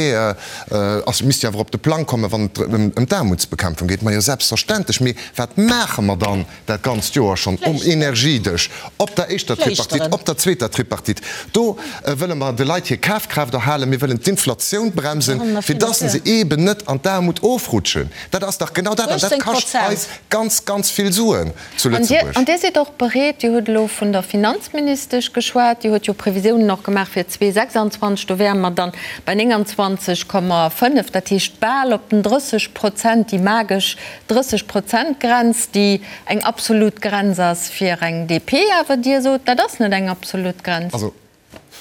ass, misst jo awer op de Plang kommen, wann et ëm d'Aarmutsbekämpfung geet. Majo, selbstverständlech. Mee wat maache mer dann dat ganzt Joer schonn um Energiedësch, op der éischter Tripartite, op der zweeter Tripartite? Do wëlle mer de Leit hir Kafkraaft erhalen, mir wëllen d'Inflatioun bremsen, fir dass se eeben net an d'Aarmut ofrutschen. Dat ass dach genau dat, an dat kascht eis ganz, ganz vill Suen. zu Lëtzebuerg. An Dir sidd och bereet, Dir hutt elo vun der Finanzministesch geschwat, déi huet jo Previsiounen och gemaach fir 2026, do wäre mer dann bei 29,5, dat heescht bal op den 30 Prozent, déi magesch 30 Prozent-Grenz, déi eng absolut Grenz ass fir eng DP. Awer Dir sot, dat ass net eng absolut Grenz. Also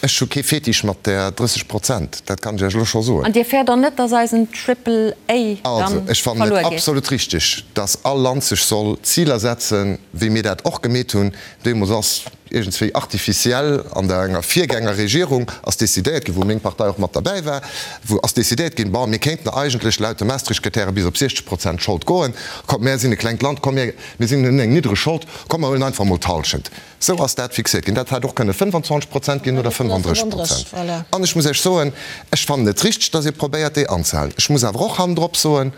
Ech hu kee Fetisch mat där 30 Prozent, dat kann ech Iech elo scho soen. An Dir fäert och net, dass eisen Triple A dann Also, ech fannen et verluer geet? absolut richtig, dass all Land sech soll Ziler setzen, wéi mir dat och gemeet hunn. Deemools ass iergendswéi artificiell an der enger Virgängerregierung ass decidéiert ginn, wou meng Partei och mat derbäi war, wou ass decidéiert ginn, bon, mir kéinten eigentlech laut de Maastricht-Kritäre bis op 60 Prozent Schold goen, komm, mär sinn e klengt Land, komm, mir, mir sinn, hunn eng niddreg Schold, komm, mer huelen einfach emol d'Hallschent. Sou ass dat fixéiert ginn. Dat hätt och kënne 25 Prozent ginn oder 35 Prozent. An ech muss Iech soen, ech fannen et richteg, datt ee probéiert, déi anzehalen. Ech muss awer och hannendrop soen,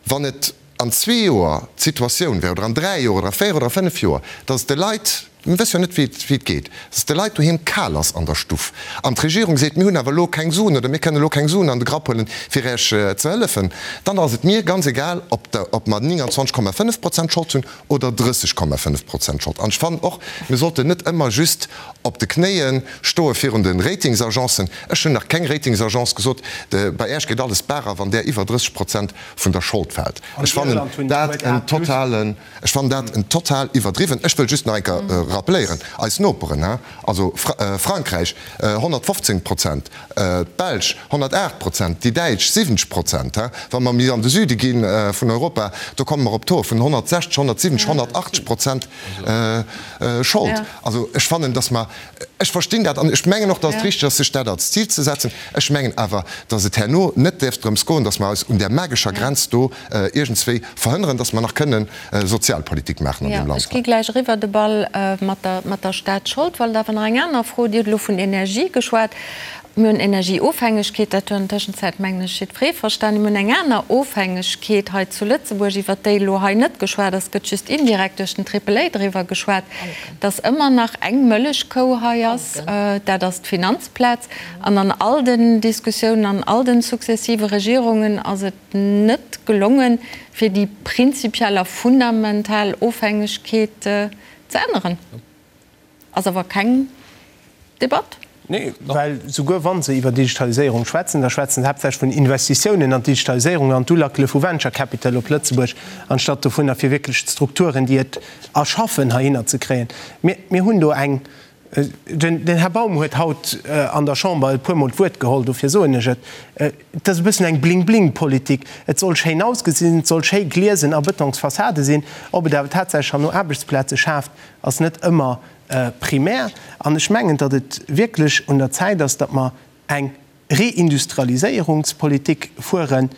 wann et an zwee Joer d'Situatioun wär, oder an dräi Joer oder a véier oder a fënnef Joer, datt et de Leit, mir wësse jo net, wéi et geet, datt et de Leit doheem kal ass an der Stuff an d'Regierung seet, mir hunn awer elo keng Suen oder mir kënnen elo keng Suen an de Grapp huelen, fir Iech ze hëllefen, dann ass et mir ganz egal, ob mer 29,5 Prozent Schold hunn oder 30,5 Prozent Schold. An ech fannen och, mir sollten net ëmmer just op de Knéie stoe virun de Ratingsagencen. Ech hunn nach keng Ratingsagence gesot, bei Äech geet alles d'Baach a wann där iwwer 30 Prozent vun der Schold fält. Ech fannen dat en totalen, ech fannen dat en total iwwerdriwwen. Ech wëll just nach eng Kéier. rappeléieren, eis Noperen, also Frankräich 115 Prozent, d'Belsch 108 Prozent, déi Däitsch 70 Prozent. Wa mer méi an de Süde gi vun Europa, do komme mer op Tauxe vun 160, 170, 180 Prozent Schold. Also ech fannen, datt mer, ech verstinn dat an ech mengen och, datt et richteg ass, sech dat als Zil ze setzen. Ech mengen awer, datt et herno net däerf drëms goen, datt mer eis un där magescher Grenz do iergendswéi verhënneren, datt mer nach kënnen Sozialpolitik maachen an deem Land. Ech gi gläich eriwwer de Ball mat der, mat der Staatsschold. Wollt awer nach eng aner Fro. Dir hutt elo vun Energie geschwat. Mir hunn Energieofhängegkeet, dat huet an der Tëschenzäit, mengen ech, jiddweree verstanen. Mir hunn eng aner Ofhängegkeet hei zu Lëtzebuerg, iwwert déi elo hei net geschwat ass, gëtt just indirekt duerch den Triple A driwwer geschwat, dass ëmmer nach eng Mëllechkou hei ass, dat ass d'Finanzplaz. An an all den Diskussiounen, an all den successive Regierungen ass et net gelongen, fir déi prinzipiell a fundamental Ofhängegkeet ze änneren. Ass awer keng Debatt. Nee, well souguer wa se iwwer Digitaliséierung schwätzen, da schwätzen se haaptsächlech vun Investitiounen an d'Digitaliséierung an d'Ulackele vu Venture Capital op Lëtzebuerg, anstatt dovunner fir wierklech d'Strukturen, déi et erschaffen, heihinner ze kréien. Mir, mir hunn do eng, den Här Baum huet haut an der Chamber e puermol d'Wuert geholl, dofir soen ech et, et ass e bëssen eng Bling-Bling-Politik. Et soll schéin ausgesinn, et soll schéi gliesen a Betonsfassade sinn. Ob et awer tatsächlech herno Aarbechtsplaze schaaft, ass net ëmmer primär. An ech mengen, datt et wierklech un der Zäit ass, datt mer eng Reindustrialiséierungspolitik fueren,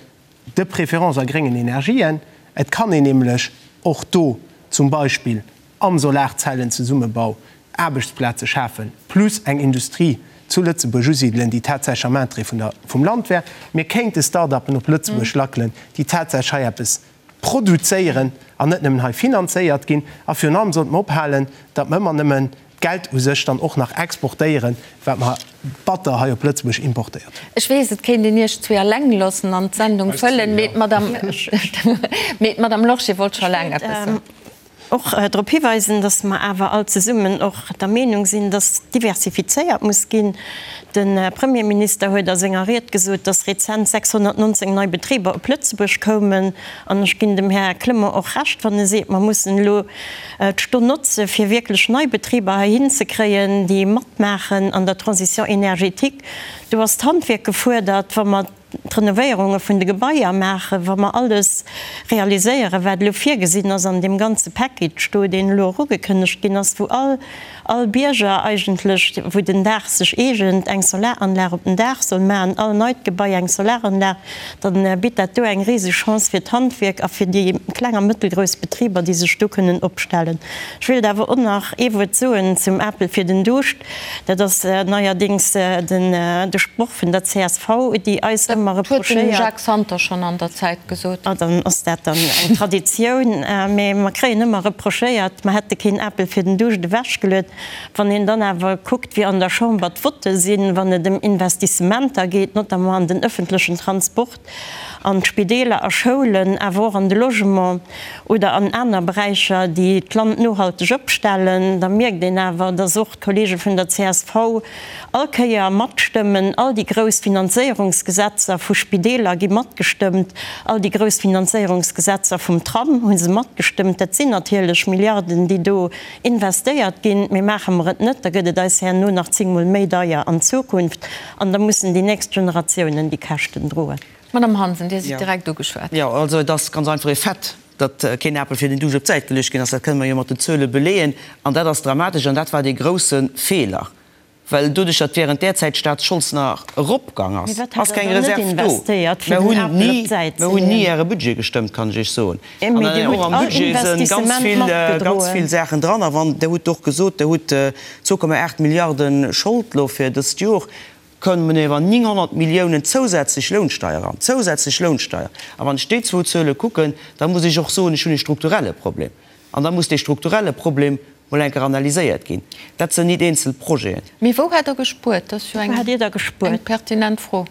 de préférence a gréngen Energien. Et kann een nämlech och do zum Beispill am Solarzellenzesummenbau Aarbechtsplaze schafen, plus eng Industrie zu Lëtzebuerg usidelen, déi tatsächlech am Interêt vun der, vum Land wär. Mir kéinte Start-upen op Lëtzebuerg lackelen, déi tatsächlech hei eppes produzéieren an net nëmmen hei finanzéiert ginn. A virun allem sollte mer ophalen, datt mer ëmmer nëmmen d'Geld u sech dann och nach exportéieren, wat mer batter hei op Lëtzebuerg importéiert hunn. Ech weess, et kéint een Iech zwee alleng loossen an d'Sendung fëllen, mee d'Madame Lorsché wollt scho laang eppes soen. Och drop hiweisen, dass mer awer all zesummen och der Meenung sinn, dass diversifizéiert muss ginn. De Premierminister huet a senger Ried gesot, dass rezent 619 nei Betriber op Lëtzebuerg koumen. An ech ginn dem Här Clement och Recht, wann e seet, mer mussen elo d'Stonn notze fir wierklech nei Betriber heihin ze kréien, déi matmaachen an der Transition énergétique. Do ass d'Handwierk gefuerdert, wa mer d'Renovéierunge vun de Gebaier maachen, wa mer alles realiséieren, wat elo virgesinn ass an deem ganze Package do, deen elo och ugekënnegt ginn ass, wou all, all Bierger eigentlech, wou den Daach sech eegent, eng Solaranlag op den Daach soll maachen, all neit Gebai eng Solaranlag, da bitt dat do eng riseg Chance fir d'Handwierk a fir déi kleng a mëttelgrouss Betriber, déi sech do kënnen opstellen. Ech wéilt awer och nach ee Wuert soen zum Apel fir den Duuscht. Dat ass neierdéngs de Sproch vun der csv, déi eis ëmmer reprochéiert. Dat huet den Jacques Santer schonn an der Zäit gesot. Ah, dann ass dat dann eng Traditioun. Mee mer kréien ëmmer reprochéiert, mer hätte keen Apel fir den Duuscht ewechgeluet. Wann een dann awer kuckt, wéi an der Chamber d'Votte sinn, wann et ëm Investissementer geet, notamment an den ëffentlechen Transport, an d'Spideeler a Schoulen, awer och an de Logement oder an aner Beräicher, déi d'Land nohalteg opstellen, da mierkt een awer, dass och d'Kollege vun der csv all Kéier matstëmmen. All déi grouss Finanzéierungsgesetzer vu Spideeler gi matgestëmmt, all déi grouss Finanzéierungsgesetzer vum Tram hu se matgestëmmt. Dat sinn natierlech Milliarden, déi do investéiert ginn. Mee maache mer et net, da gëtt et eis herno nach zéngmol méi deier an Zukunft. An da mussen déi nächst Generatiounen déi Käschten droen. Madame Hansen, Dir sidd direkt ugeschwat. Jo, also et ass ganz einfach e Fait, datt keen Apel fir den Duuscht op d'Säit geluecht ginn ass. Dat kënne mer jo mat den Zuele beleeën. An dat ass dramatesch an dat war dee grousse Feeler, well doduerch, datt während där Zäit d'Staatsschold nach eropgang ass, ass keng Reserv do. Mer hunn ni, mer hunn ni Äre Budget gestëmmt, kann ech Iech soen. An och am Budget si ganz vill, ganz vill Saachen dran. A wann, Der hutt och gesot, Der hutt 2,8 Milliarde Schold elo fir dëst Jor, kommen iwwer 900 Milliounen zousätzlech Lounsteier eran, zousätzlech Lounsteier. A wann ech déi zwou Zuele kucken, da muss ech och soen, ech hunn e strukturelle Problem. An da muss dee strukturelle Problem mol eng Kéier analyséiert ginn. Dat sinn nit eenzel Projeten. Mee wou hätt Der gespuert? Dat ass jo eng pertinent Fro.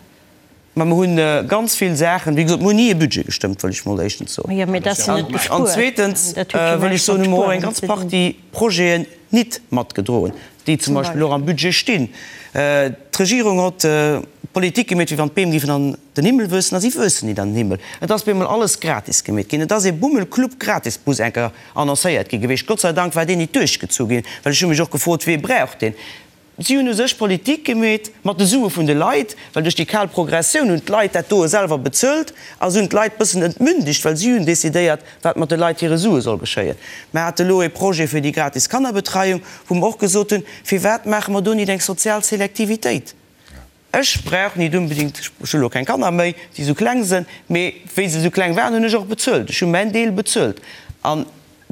Mä mer hu ganz vill Saachen, wéi gesot, mer hunn ni e Budget gestëmmt, wëll ech mol éischtens soen. An zweetens wëll ech soen, hu mer och eng ganz Partie Projeten nit matgedroen, déi zum Beispill och am Budget stinn. D'Regierung hott. Politik gemeet, wéi wann d'Beem géifen an den Himmel wuessen, a si wuessen nit an den Himmel. Et ass bemol alles gratis gemeet ginn. Et ass ee Bummelclub Gratisbus enker annoncéiert gi gewiescht. Gott sei Dank war deen nit duerchgezu ginn, well ech hu mech och gefrot, Wee brauch deen? Si hunn u sech Politik gemeet mat de Sue vun de Leit, well duerch déi kal Progressioun hunn d'Leit dat doe selwer bezuelt a se hunn d'Leit bëssen entmündegt, well si hunn decidéiert, wat mat de Leit hire Sue soll geschéien. Mer hate lo ee Projet fir déi gratis Kannerbetreiung, wou mer och gesot hunn, Firwat maache mer do nit eng sozial Selektivitéit? Ech brauch nit unbedingt, ech hu lo keng Kanner méi, déi esou kleng sënn, mee wéi se esou kleng waren, hunn ech och bezuelt. Ech hu mäin Deel bezuelt. An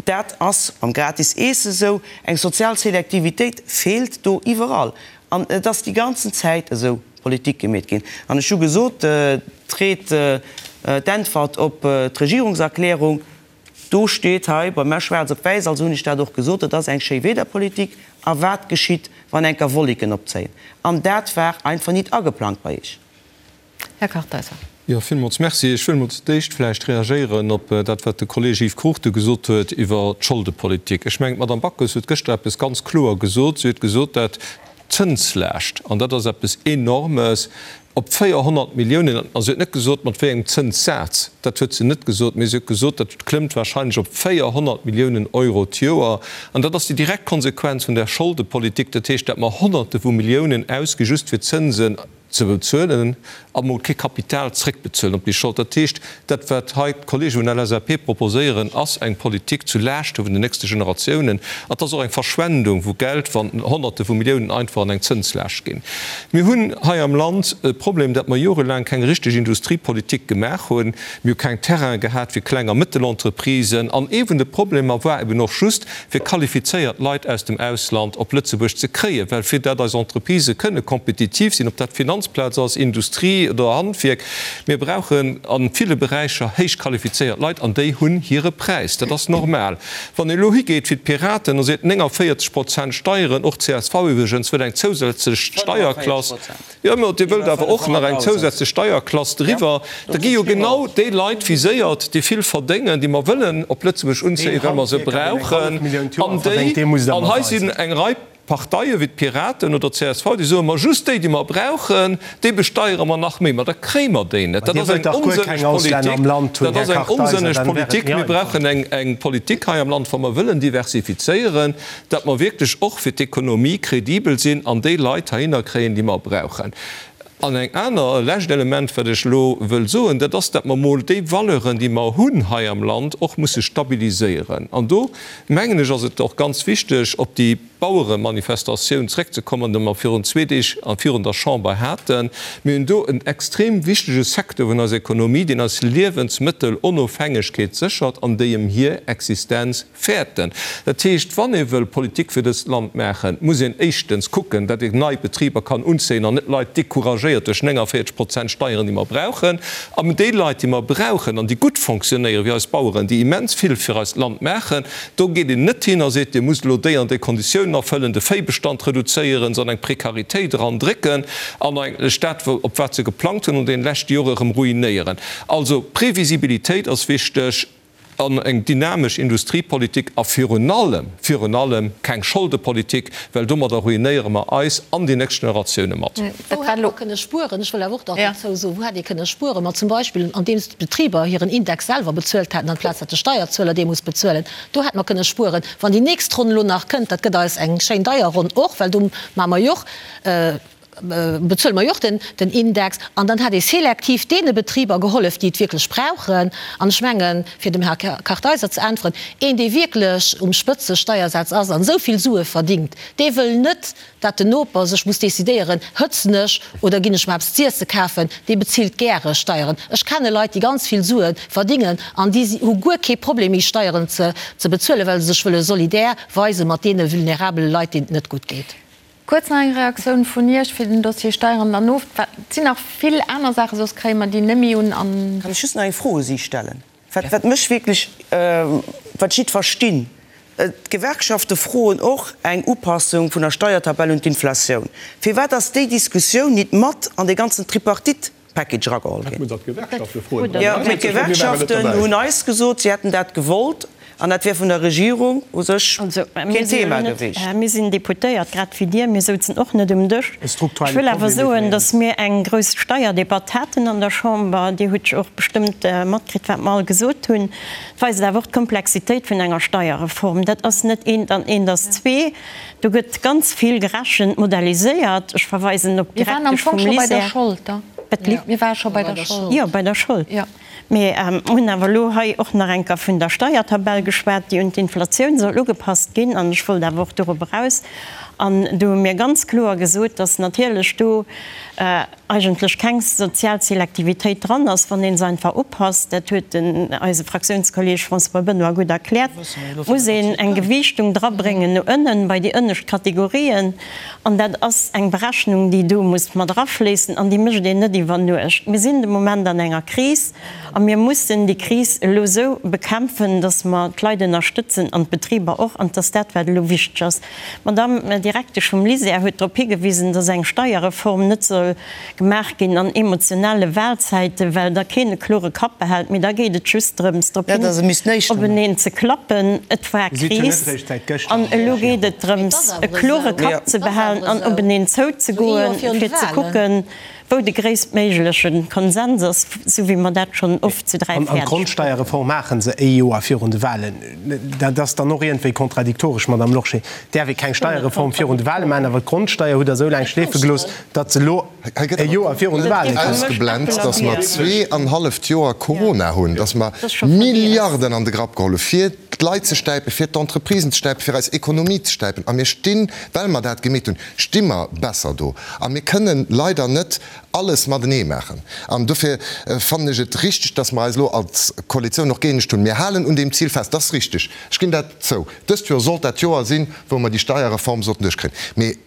dat ass mam gratis Eesse esou. Eng sozial Selektivitéit feelt do iwwerall. An et ass déi ganzen Zäit esou Politik gemeet ginn. An ech hu gesot, d'Ried, d'Äntwert op d'Regierungserklärung, Do steet hei bei mär schwaarz op wäiss, also hunn ech dat och gesot, dat ass eng Schéiwiederpolitik. A wat geschitt, wann enker Wolleken opzéien? An dat war einfach nit ageplangt bei Iech. Här Kartheiser. Jo, villmools Merci. Ech wëll mol zu d'éischt vläicht reagéieren op dat, wat de Kolleeg Yves Cruchten gesot huet iwwer d'Scholdepolitik. Ech mengen, d'Madame Backes huet gëschter eppes ganz kloer gesot. Si huet gesot, dat d'Zënslaascht, an dat ass eppes Enormes, op 400 Milliounen, a si huet net gesot, mat wéi engem Zënssaz, dat huet se net gesot, mee si huet gesot, dat klëmmt wahrscheinlech op 400 Milliounen Euro d'Joer. An dat ass déi direkt Konsequenz vun där Scholdepolitik, dat heescht, dat mer Honnerte vu Milliounen ausgi just fir Zënsen ze bezuelen a mol kee Kapital zréckbezuelen op déi Schold. Dat heescht, dat wat hei d'Kollege vun der LSAP proposéieren, ass eng Politik zu Laaschte vun den nächste Generatiounen. An et ass och eng Verschwendung vu Geld, wann Honnerte vu Milliounen einfach an eng Zënslaascht ginn. Mir hunn hei am Land e Problem, dat mer jorelaang keng richteg Industriepolitik gemaach hunn. Mir hu keng Terraine gehat fir Kleng a Mëttelentreprisen. An ee vun de Problemer war eben och just, fir qualifizéiert Leit aus dem Ausland op Lëtzebuerg ze kréien, well fir dat eis Entreprisë kënne kompetitiv sinn, ob dat d'Finanzplaz ass, Industrie oder Handwierk, mir brauchen a ville Beräicher héich qualifizéiert Leit an déi hunn hire Präis. Dat ass normal. Wann ee elo higeet wéi d'Piraten a seet 49 Prozent Steieren, och csv iwwregens wëll eng zousätzlech Steierklass, jo mä Dir wëllt awer och nach eng zousätzlech Steierklass driwwer, da gi jo genau déi Leit viséiert, déi vill verdéngen, déi mer wëllen op Lëtzebuerg unzéien, well mer se brauchen, an déi, an hei sinn eng Rei Parteie wéi d'Piraten oder d'CSV, déi soen, ma just déi, déi mer brauchen, déi besteiere mer nach méi. Ma da kréie mer déi net. Dat ass eng onsënneg Politik. Dat ass eng onsënneg Politik. Mir brauchen eng Politik hei am Land, wa mer wëllen diversifizéieren, datt mer wierklech och fir d'Ekonomie kredibel sinn an déi Leit heihinner kréien, déi mer brauchen. An eng aner, e lescht Element, wat ech elo wëll soen, dat ass, datt mer emol déi Valeuren, déi mer hunn hei am Land, och musse stabiliséieren. An do, mengen ech, ass et och ganz wichteg, op déi Baueremanifestatioun zréckzekommen, déi mer virun zwee Deeg virun der Chamber haten. Mir hunn do en extrem wichtege Secteur vun eiser Ekonomie, deen eis Liewensmëttelonofhängegkeet séchert an déi ëm hir Existenz Fäerten. Dat heescht, wann ee wëll Politik fir dëst Land maachen, muss een éischtens kucken, datt een nei Betriber kann unzéien an net Leit decouragéiert duerch 49 Prozent Steieren, déi mer brauchen. An déi Leit, déi mer brauchen an déi gutt fonctionnéieren, wéi eis Baueren, déi immens vill fir eist Land maachen, do geet een net hin a seet, Dir musst elo déi an déi Konditiounen erfëllen, de Véibestand reduzéieren, se an eng Prekaritéit erandrécken an eigentlech dat, op wat se geplangt hunn an deene leschte Jore erëm ruinéieren. Also Previsibilitéit ass wichteg. An eng dynamesch Industriepolitik a virun allem, virun allem keng Scholdepolitik, well domadder ruinéiere mer eis an déi nächst Generatioune mat. Wou hätt mer kënne spueren? Ech wëll awer och nach dozou soen, wou hätt ee kënne spueren? Ma zum Beispill andeems d'Betriber hiren Index selwer bezuelt hätten, amplaz datt de Steierzueler dee muss bezuelen. Do hätt mer kënne spueren. Wann déi nächst Ronn elo nach kënnt, dat gëtt eis eng schéin deier Ronn och, well do maache mer jo och, bezuele mer jo och den Index, an dann hätt ee selektiv deene Betriber gehollef, déi et wierklech brauchen. An ech mengen, fir dem Här Kartheiser ze äntweren, een, dee wierklech um Spëtzesteiersaz ass an esou vill Sue verdingt, dee wëll net, dat den Noper sech muss decidéieren, hëtzen ech oder ginn ech mer eppes z'iesse kafen, dee bezilt gäre Steieren. Ech kenne Leit, déi ganz vill Sue verdingen an déi hu guer kee Problem méi Steieren ze bezuelen, well se sech wëlle solidär weise mat deene vulnerabele Leit, deenen et net gutt geet. Kuerz nach eng Reaktioun vun Iech fir den Dossier Steieren dann of. Et sinn nach vill aner Saachen, soss kréie mer déi net méi un an. Kann ech just nach eng Fro u si stellen, wat wat mech wierklech, wat ech nit verstinn? D'Gewerkschafte froen och eng Upassung vun der Steiertabell un d'Inflatioun. Firwat ass déi Diskussioun nit mat an dee ganzen Tripartite Package erageholl ginn. Jo, mee d'Gewerkschaften hunn eis gesot, si hätten dat gewollt. An dat wär vun der Regierung u sech keen Thema gewiescht. Mir sinn Deputéiert, grad wéi Dir. Mir souzen och net um Dësch. Ech wëll awer soen, datt mir eng grouss Steierdebatt haten an der Chamber. Dir hutt jo och bestëmmt matkritt, wat mer all gesot hunn. Et weist awer och d'Komplexitéit vun enger Steierreform. Dat ass net eent an eent ass zwee. Do gëtt ganz vill gerechent, modelliséiert. Ech verweisen op d'Direktesch vum LISER. Mir ware scho bei der Schold. Jo, bei der Schold. Mir hunn awer elo hei och nach eng Kéier vun der Steiertabell geschwat, déi un d'Inflatioun soll ugepasst ginn. An ech wollt awer och dorop eraus. An do hu mir ganz kloer gesot, dass natierlech do eigentlech keng sozial Selektivitéit dran ass, wann ee se einfach upasst. Dat huet den eise Fraktiounskolleeg François Benoy gutt erkläert. Muss een eng Gewiichtung drabréngen no ënnen, bei déi ënnescht Kategorien. An dat ass eng Berechnung, déi do muss mat erafléissen an déi mécht een net iwwer Nuecht. Mir sinn de Moment an enger Kris a mir mussen déi Kris elo esou bekämpfen, datt mer d'Leit ënnerstëtzen an d'Betriber och. An et ass dat, wat elo wichteg ass. D'Madame Direktesch vum LISER huet drop higewisen, datt eng Steierreform net soll gemaach ginn an emotionale Wahlzäiten, well da keen e klore Kapp behält, mee da geet et just drëms, drop hin openeen ze klappen. Et war Kris an elo geet et drëms, e klore Kapp ze behalen an openeen zouzegoen, fir ze kucken, wou de gréisstméigleche Konsens ass, esou wéi mer dat schonn oft zu 3 An fäerdeg d'Grondsteierreform maache se e Joer virun de Wahlen. Dat ass dann och iergendwéi kontradiktoresch, Madamm Lorsché. Et däerf ee keng Steierreform virun de Wahle maachen, awer d'Grondsteier hutt Der esou laang schleefe gelooss, datt se elo e Joer virun de Wahlen kënnt. Ausgeblent, datt mer zweeanhalleft Joer Corona hunn, datt mer Milliarden an de Grapp geholl hu fir d'Leit ze stäipen, fir d'Entreprisen ze stäipen, fir eis Ekonomie ze stäipen. A mir stinn, well mer dat gemeet hunn, sti mer besser do. A mir kënnen leider net alles matenee maachen. An dofir fannen ech et richtig, datt mer eis elo als Koalitioun och gëeenegt hunn. Mir halen un deem Zil fest, dat ass richtig, ech ginn dat zou. Dëst Joer sollt dat Joer sinn, wou mer déi Steierreform sollten duerchkréien. Mee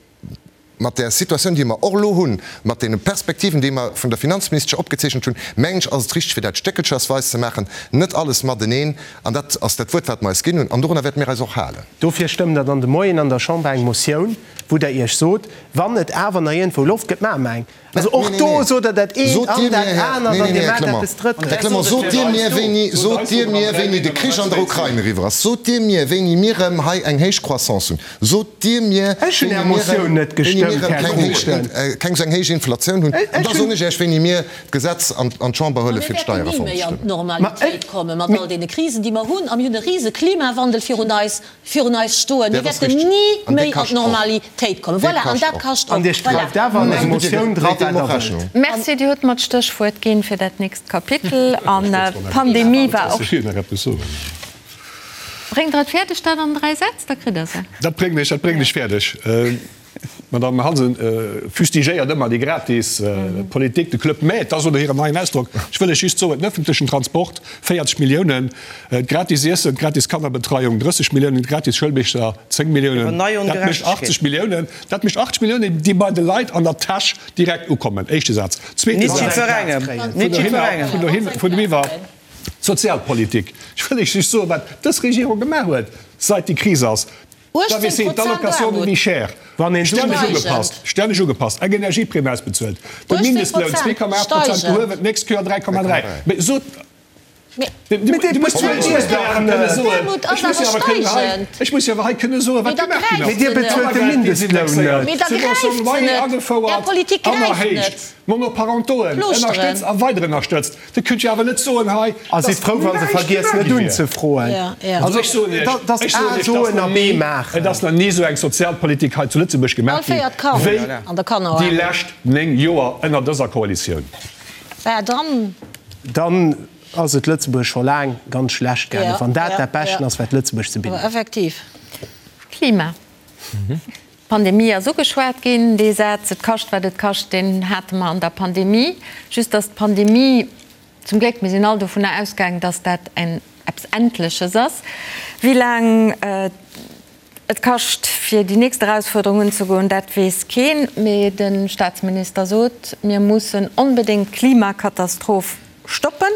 mat där Situatioun, déi mer och elo hunn, mat deene Perspektiven, déi mer vun der Finanzministesche opgezeechent hunn, mengen ech, ass et richtig, fir dat stéckelchersweis ze maachen, net alles mateneen. An dat ass dat Wuert, wat mer eis ginn hunn, an dorunner wäerte mir eis och halen. Dofir stëmmt Der dann de Moien an der Chamber eng Motioun, wou Der Iech sot, wann et awer nach iergendwou Loft gëtt, maache mer eng. Also och do sot Der dat eent an dat anert an Dir maacht eppes Drëttes. Här Clement, sot Dir mir, wéini, sot Dir mir, wéini de Krich an der Ukrain eriwwer ass? Sot Dir mir, wéini mir erëm hei eng héich Croissance hunn? Sot Dir mir, Ech hunn wéini Är mir Motioun erëm, net wéini mir gestëmmt, erëm Här keng héich, Cruchten. keng esou eng héich Inflatioun hunn? Ech An da hunn. soen ech Iech, wéini mir d'Gesetz an d'Chamber Ma huele mir fir wäerten ni d'Steierreform méi ze an stëmmen. d'Normalitéit komme mat all deene Krisen, déi mer hunn. A mir hunn e rise Klimawandel virun eis. virun eis stoen. Mir Dat ass wäerten richtig. ni An dee méi an kascht och. d'Normalitéit kommen. Dee Voilà, an kascht dat och. kascht An och. Dir Voilà. schreift awer an eng Motioun dra, wat Der wëllt. Merci, Dir hutt mer d'Stéchwuert ginn fir dat nächst Kapitel. An d'Pandemie war och. Ech wéilt nach eppes soen. Bréngt Der et fäerdeg, dat an 3 Sätz, da kritt Der se. Dat bréngen ech, dat bréngen ech fäerdeg. D'Madame Hansen fustigéiert ëmmer déi gratis Politik, de Club Med, dat ass oder hiren neien Ausdrock. Ech wëll lech just soen, den ëffentlechen Transport, 40 Milliounen, d'gratis Iessen, d'gratis Kannerbetreiung, 30 Milliounen, d'gratis Schoulbicher, 10 Milliounen, dat mécht 80 Milliounen. Dat mécht 80 Milliounen, déi bei de Leit an der Täsch direkt ukommen. Éischte Saz. Zweete Saz, vun dohin, vun dohiwwer, d'Sozialpolitik. Ech wëll lech just soen, wat dës Regierung gemaach huet, seit déi Kris ass. 18 D'AVC, Prozent d'Allocation de Aarmut. vie chère, Wann een stänneg Steigend. ugepasst, stänneg ugepasst, eng Energieprimm ausbezuelt, de 18 Mindestloun Prozent 2,8 Prozent steigen. gehuewen, d'nächst Kéier 3,3. Mee sot, Mee du Mee dir muss bezuelt jo Iech dach net. D'Aarmut ech ass muss jo awer awer kënnen hei, steigend. ech muss jo awer hei kënne soen, Mee wat da gemaach ginn gräift ass. Mee dir se net. bezuelt de Mindestloun net. Mee da gräift Subvention se loyer net. Är agefouert Politik an gräift erhéicht. net. Monoparentoen Plooschteren. ënnerstëtzt a weider ënnerstëtzt. Dir kënnt jo awer net soen hei, A sidd dass frou, wa se näischt vergiess gemaach net gi wier. unzefroen. Ja, ja. Also ech soen Iech, Dat ass ech soen A Iech, dass soen nach a B ni, maachen. et ass nach ni esou eng Sozialpolitik hei zu Lëtzebuerg All gemaach ginn, véiert Kand wéi an der déi Kannerarmut. lescht 9 Joer ënner dëser Koalitioun. Bah, dann. Dann ass et Lëtzebuerg scho laang ganz schlecht gaangen, Ja, wann dat ja, dat Beschten ja. ass, wat Lëtzebuerg ze bidden Awer huet. effektiv. Klima. D'Pandemie ass ugeschwat ginn. Dee Saz, et kascht, wat et kascht, deen hate mer an der Pandemie. Just dass d'Pandemie, zum Gléck, mir sinn all dovunner ausgaangen, dass dat en eppes Endleches ass. Wéi laang et kascht, fir déi nächst Erausfuerderung unzegoen, dat weess keen. Mee de Staatsminister sot, mir mussen onbedéngt d'Klimakatastroph stoppen.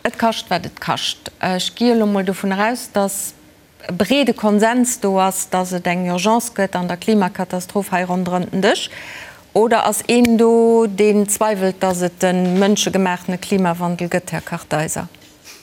Et kascht, wat et kascht. Ech gi elo mol dovun eraus, dass e breede Konsens do ass, dass et eng Urgence gëtt an der Klimakatastroph hei ronderëm den Dësch? Oder ass een do, deen zweiwelt, dass et e mënschegemaachtene Klimawandel gëtt, Här Kartheiser?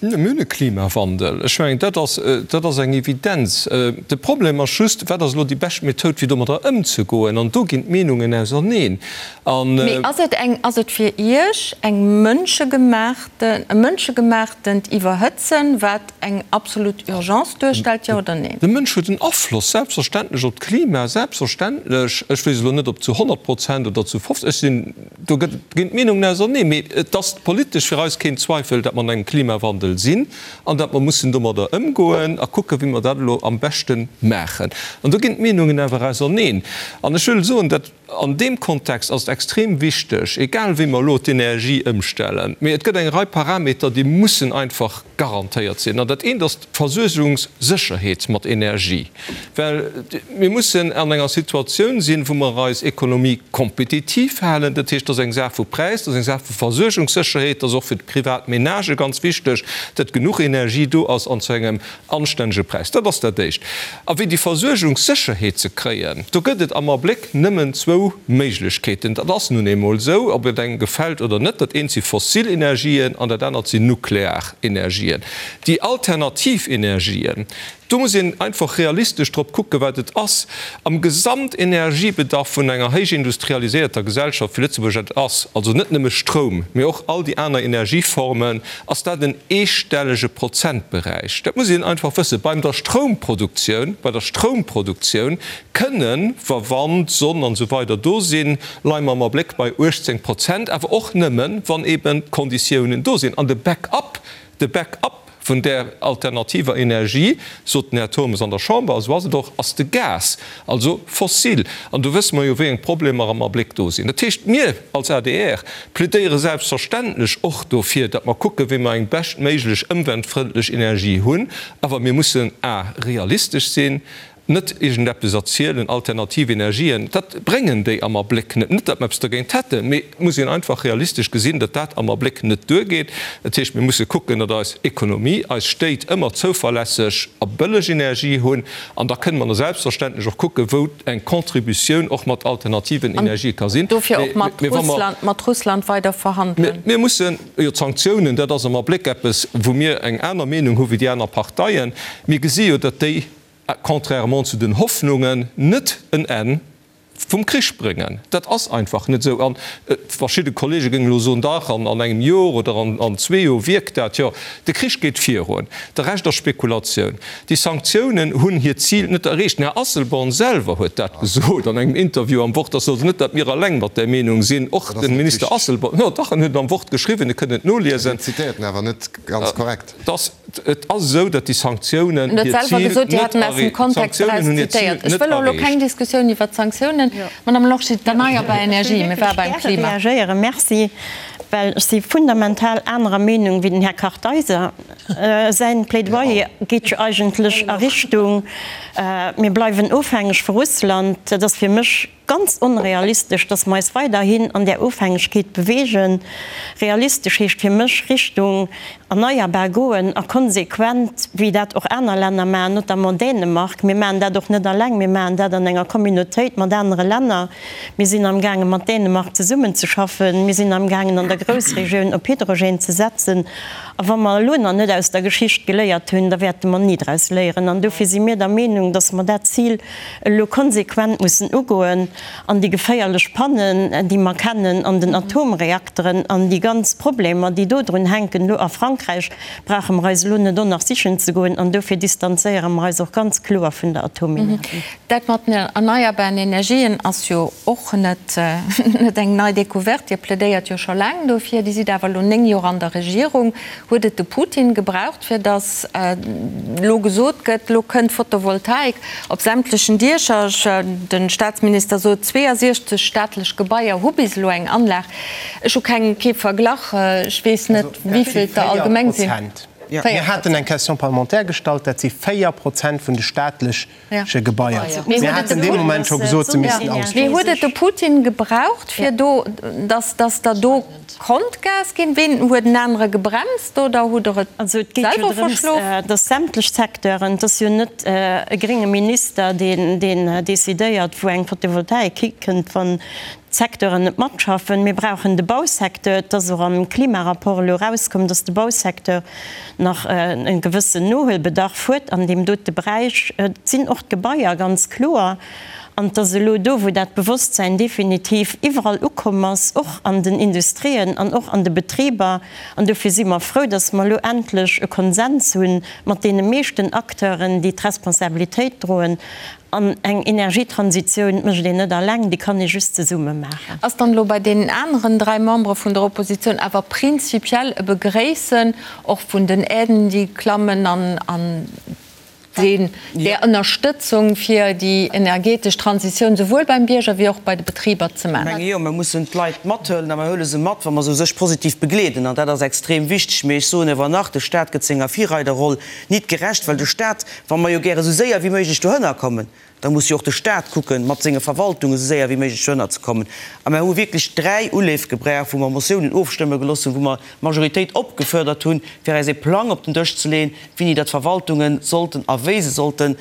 Mir hunn e Klimawandel. Ech mengen, dat ass, dat ass eng Evidenz. De Problem ass just, Wat ass elo déi bescht Methoud, fir domadder ëmzegoen? An do ginn d'Meenungen auserneen. An. Mee ass et eng, ass et fir Iech eng mënschegemaachten, e mënschegemaachtend Iwwerhëtzen, wat eng absolut Urgence duerstellt, jo oder neen? De Mënsch huet en Afloss, selbstverständlech, op d'Klima, selbstverständlech. Ech weess elo net, ob zu 100 Prozent oder zu 50, ech sinn. Do ginn d'Meenungen auserneen, mee et ass politesch fir eis keen Zweifel, datt mer an engem Klimawandel sinn an datt mer mussen domadder ëmgoen a kucken, wéi mer dat elo am beschte maachen. An do ginn d'Meenungen awer auserneen. An ech wëll soen, datt an deem Kontext ass et extrem wichteg, egal wéi mer elo d'Energie ëmstellen, mee et gëtt eng Rei Parameter, déi mussen einfach garantéiert sinn. An dat eent ass d'Versuergungssécherheet mat Energie, well mir mussen an enger Situatioun sinn, wou mer eis Ekonomie kompetitiv halen. Dat heescht, dat ass eng Saach vu Präis, dat ass eng Saach vu Versuergungssécherheet, dat ass och fir d'privat Menagë ganz wichteg, datt genuch Energie do ass an zu engem anstännege Präis. Dat ass dat Éischt. A fir déi Versuergungssécherheet ze kréien, do gëtt et am Abléck nëmmen zwou Méiglechkeeten. Dat ass nun eemol esou, ob et engem gefält oder net. Dat eent si fossil Energien an dat anert sinn nuklear Energien. Déi alternativ Energien, do muss een einfach realistesch drop kucken, wat et ass am Gesamtenergiebedarf vun enger héich industrialiséierter Gesellschaft wéi Lëtzebuerg et ass, also net nëmme Stroum, mee och all déi aner Energieformen, ass dat en eestellege Prozentberäich. Dat muss een einfach wëssen. Beim der Stroumproduktioun, bei der Stroumproduktioun kënnen, wa Wand, Sonn an esou weider do sinn, leie mer am Abléck bei 18 Prozent, awer och nëmmen, wann eeben d'Konditiounen do sinn. An de Backup, de Backup vun där alternativer Energie, sot den Här Turmes an der Chamber, a sou ass et och, ass de Gas, also fossil. An do wësse mer jo, wéi eng Problemer am Abléck do sinn. Dat heescht, mir als adr plädéiere selbstverständlech och dofir, datt mer kucken, wéi mer eng beschtméiglech ëmweltfrëndlech Energie hunn. Awer mir mussen a realistesch sinn, Net iergendeppes erzielen, alternativ Energien, dat bréngen déi am Abléck net. Net, datt mer eppes dergéint hätten, mee et muss een einfach realistesch gesinn, datt dat am Abléck net duergeet. Dat heescht, mir musse kucken, datt eis Ekonomie, eis Stéit ëmmer zouverlässeg a bëlleg Energie hunn. An da kënne mer selbstverständlech och kucken, wou eng Contributioun och mat alternativen Energië ka sinn. An dofir och mat Russland, mat Russland weider verhandelen. Mir mussen, jo, d'Sanktiounen, dat ass am Abléck eppes, wou mir eng aner Meenung hu wéi déi aner Parteien. Mir gesi jo, datt déi, contrairement zu den Hoffnungen, net en Enn vum Krich bréngen. Dat ass einfach net esou. An verschidde Kollege géingen elo soen, dach, an engem Jor oder an zwee Jor wierkt dat. Jo, de Krich geet virun. De Rescht ass Spekulatioun. Déi Sanktiounen hunn hiert Zil net erreecht. Den Här Asselborn selwer huet dat gesot an engem Interview am Wort. Ass also net, datt mir eleng mat där Meenung sinn. Och de Minister Asselborn, jo dach, en huet et am Wort geschriwwen, Dir kënnt et noliesen. Dir zitéiert en awer net ganz korrekt. Dass Et ass esou, datt déi Sanktiounen hiert Zil net erreecht. D'Sanktiounen hunn hiert Zil net erreecht. Keng Diskussioun iwwer d'Sanktiounen. Madame Lorsché, d'erneierbar Energie, mir ware beim Klima. Ech wëll wierklech gäre reagéieren, merci, well ech si fundamental anerer Meenung wéi den Här Kartheiser. Säin Plädoyer geet jo eigentlech a Richtung, mir bleiwen ofhängeg vu Russland. Dat ass fir mech Ganz onrealistesch, dass mer eis weiderhin an där Ofhängegkeet bewegen. Realistesch heescht fir mech Richtung erneierbar goen a konsequent, wéi dat och aner Länner maachen, notamment Dänemark. Mir maachen dat och net alleng, mir maachen dat an enger Communautéit mat anere Länner. Mir sinn amgaange mat Dänemark zesummenzeschaffen. Mir sinn amgaangen an der Groussregioun op Hydrogène ze setzen. A wa mer elo nach net aus der Geschicht geléiert hunn, da wäerte mer ni draus léieren. An dofir si mir der Meenung, dass mer dat Zil elo konsequent mussen ugoen an déi geféierlech Pannen, déi mer kennen an den Atomreakteren an déi ganz Problemer, déi do drun hänken, elo a Frankräich, brauche mer eis elo net och nach sichen ze goen. An dofir distanzéiere mer eis och ganz kloer vun der Atomenergie. Dat mat den erneierbaren Energien ass jo och net eng nei Découverte. Dir plädéiert jo scho laang dofir. Dir sidd awer elo 9 Joer an der Regierung. Huet et de Putin gebraucht, fir datt elo gesot gëtt, elo kënnt Photovoltaik op sämtlechen Diecher? De Staatsminister sot, 62 staatlech Gebaier hu bis elo eng Anlag. Ech hu keng, kee Verglach, ech weess net, wéi vill et der allgemeng sinn. Mir haten eng Question parlementaire gestallt, dat si 4 Prozent vun de staatlech che Gebaier. Mir haten dee Moment scho gesot, se missten ausgebaut ginn. Mee huet et de Putin gebraucht, fir do, dass, dass der do konnt Gas ginn? Ween huet en anere gebremst oder hutt Der et Also et geet jo selwer drëms, verschlof? dass sämtlech Secteuren, et ass jo net e grénge Minister, deen, deen decidéiert, wou eng Photovoltaik hikënnt. Wann. d'Secteuren net matschaffen. Mir brauchen de Bausecteur. Et ass och am Klimarapport elo erauskomm, dass de Bausecteur nach e gewëssen Nohuelbedarf huet an deem dote Beräich. Et sinn och d'Gebaier, ganz kloer. An et ass elo do, wou dat Bewosstsäin definitiv iwwerall ukomm ass, och an den Industrien an och an de Betriber. An dofir si mer frou, dass mer elo endlech e Konsens hu mat deene meeschten Acteuren, déi d'Responsabilitéit droen. An eng Energietransitioun mécht een net alleng, déi kann ee just zesumme maachen. Ass dann elo bei deenen aneren 3 Membere vun der Oppositioun awer prinzipiell e Begréissen och vun den Aiden, déi klammen an deen där Ënnerstëtzung fir déi energetesch Transitioun souwuel beim Bierger wéi och bei de Betriber ze maachen? Ech menge jo, mer mussen d'Leit mathuelen a mer huele se mat, wa mer se u sech positiv begleeden. An dat ass extrem wichteg. Mee ech soen ewer nach, de Stat gëtt senger Virreiderroll nit gerecht, well de Stat, wa mer jo gäre sou séier wéi méiglech dohënner kommen, da muss jo och de Stat kucken, mat senge Verwaltungen esou séier wéi méiglech dohënner ze kommen. A mer hu wierklech 3 Uleef gebraucht, wou mer Motiounen ofstëmme gelooss hunn, wou mer d'Majoritéit opgefuerdert hunn, fir eis ee Plang op den Dësch ze leeën, wéini datt d'Verwaltunge sollten a wéi se sollte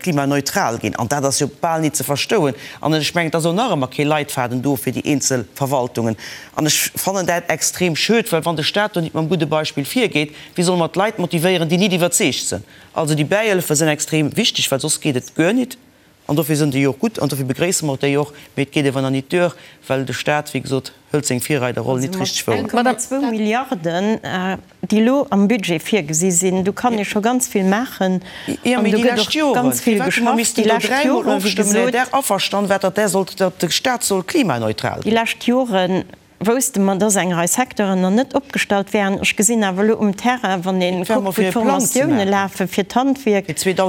klimaneutral ginn. An dat ass jo bal nit ze verstouen. An ech mengen, et ass och nach ëmmer kee Leitfaden do fir déi eenzel Verwaltungen. An ech fannen dat extrem schued, well wann de Stat do nit mam gudde Beispill virgeet, Wéi solle mer d'Leit motivéieren, déi nit iwwerzeegt sënn? Also déi Bäihëllefe sënn extrem wichteg, well soss geet et guer nit. An dofir sënn déi och gutt an dofir begréisse mer déi och. Mee et geet ewer nach nit duer, well de Stat, wéi gesot, hëlt seng Virreiderroll nit richteg wouer. Mat 1,2 Milliarden, déi elo am Budget virgesi sinn, do kann ee scho ganz vill maachen an do gëtt och ganz vill geschafft. Déi lescht Joren, wéi gesot, déi lescht Joren, wousste mer, dass eng Rei Secteuren nach net opgestallt wären. Ech gesinn awer elo um Terrain, wann ee kuckt, wou d'Formatioune lafe fir d'Handwierk, et geet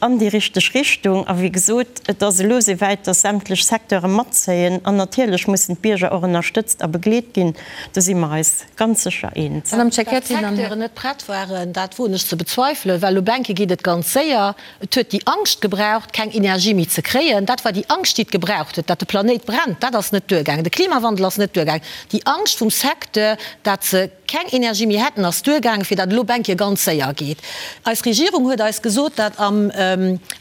an déi richteg Richtung. A wéi gesot, et ass elo esouwäit, dass sämtlech Secteure matzéien. An natierlech mussen d'Bierger och ënnerstëtzt a begleet ginn. Do si mer eis ganz sécher eens. Datt d'Secteuren net prett waren, dat woen ech ze bezweifelen, well op enke geet et ganz séier. Et huet déi Angscht gebraucht, keng Energie méi ze kréien. Dat war déi Angscht, déi et gebraucht huet. Dat de Planéit brennt, dat ass net duergaangen. De Klimawandel ass net duergaangen. Déi Angscht vum Secteur, dat se keng Energie méi hätten, ass duergaangen, fir dat elo op eng Kéier ganz séier geet. Eis Regierung huet eis gesot, dat am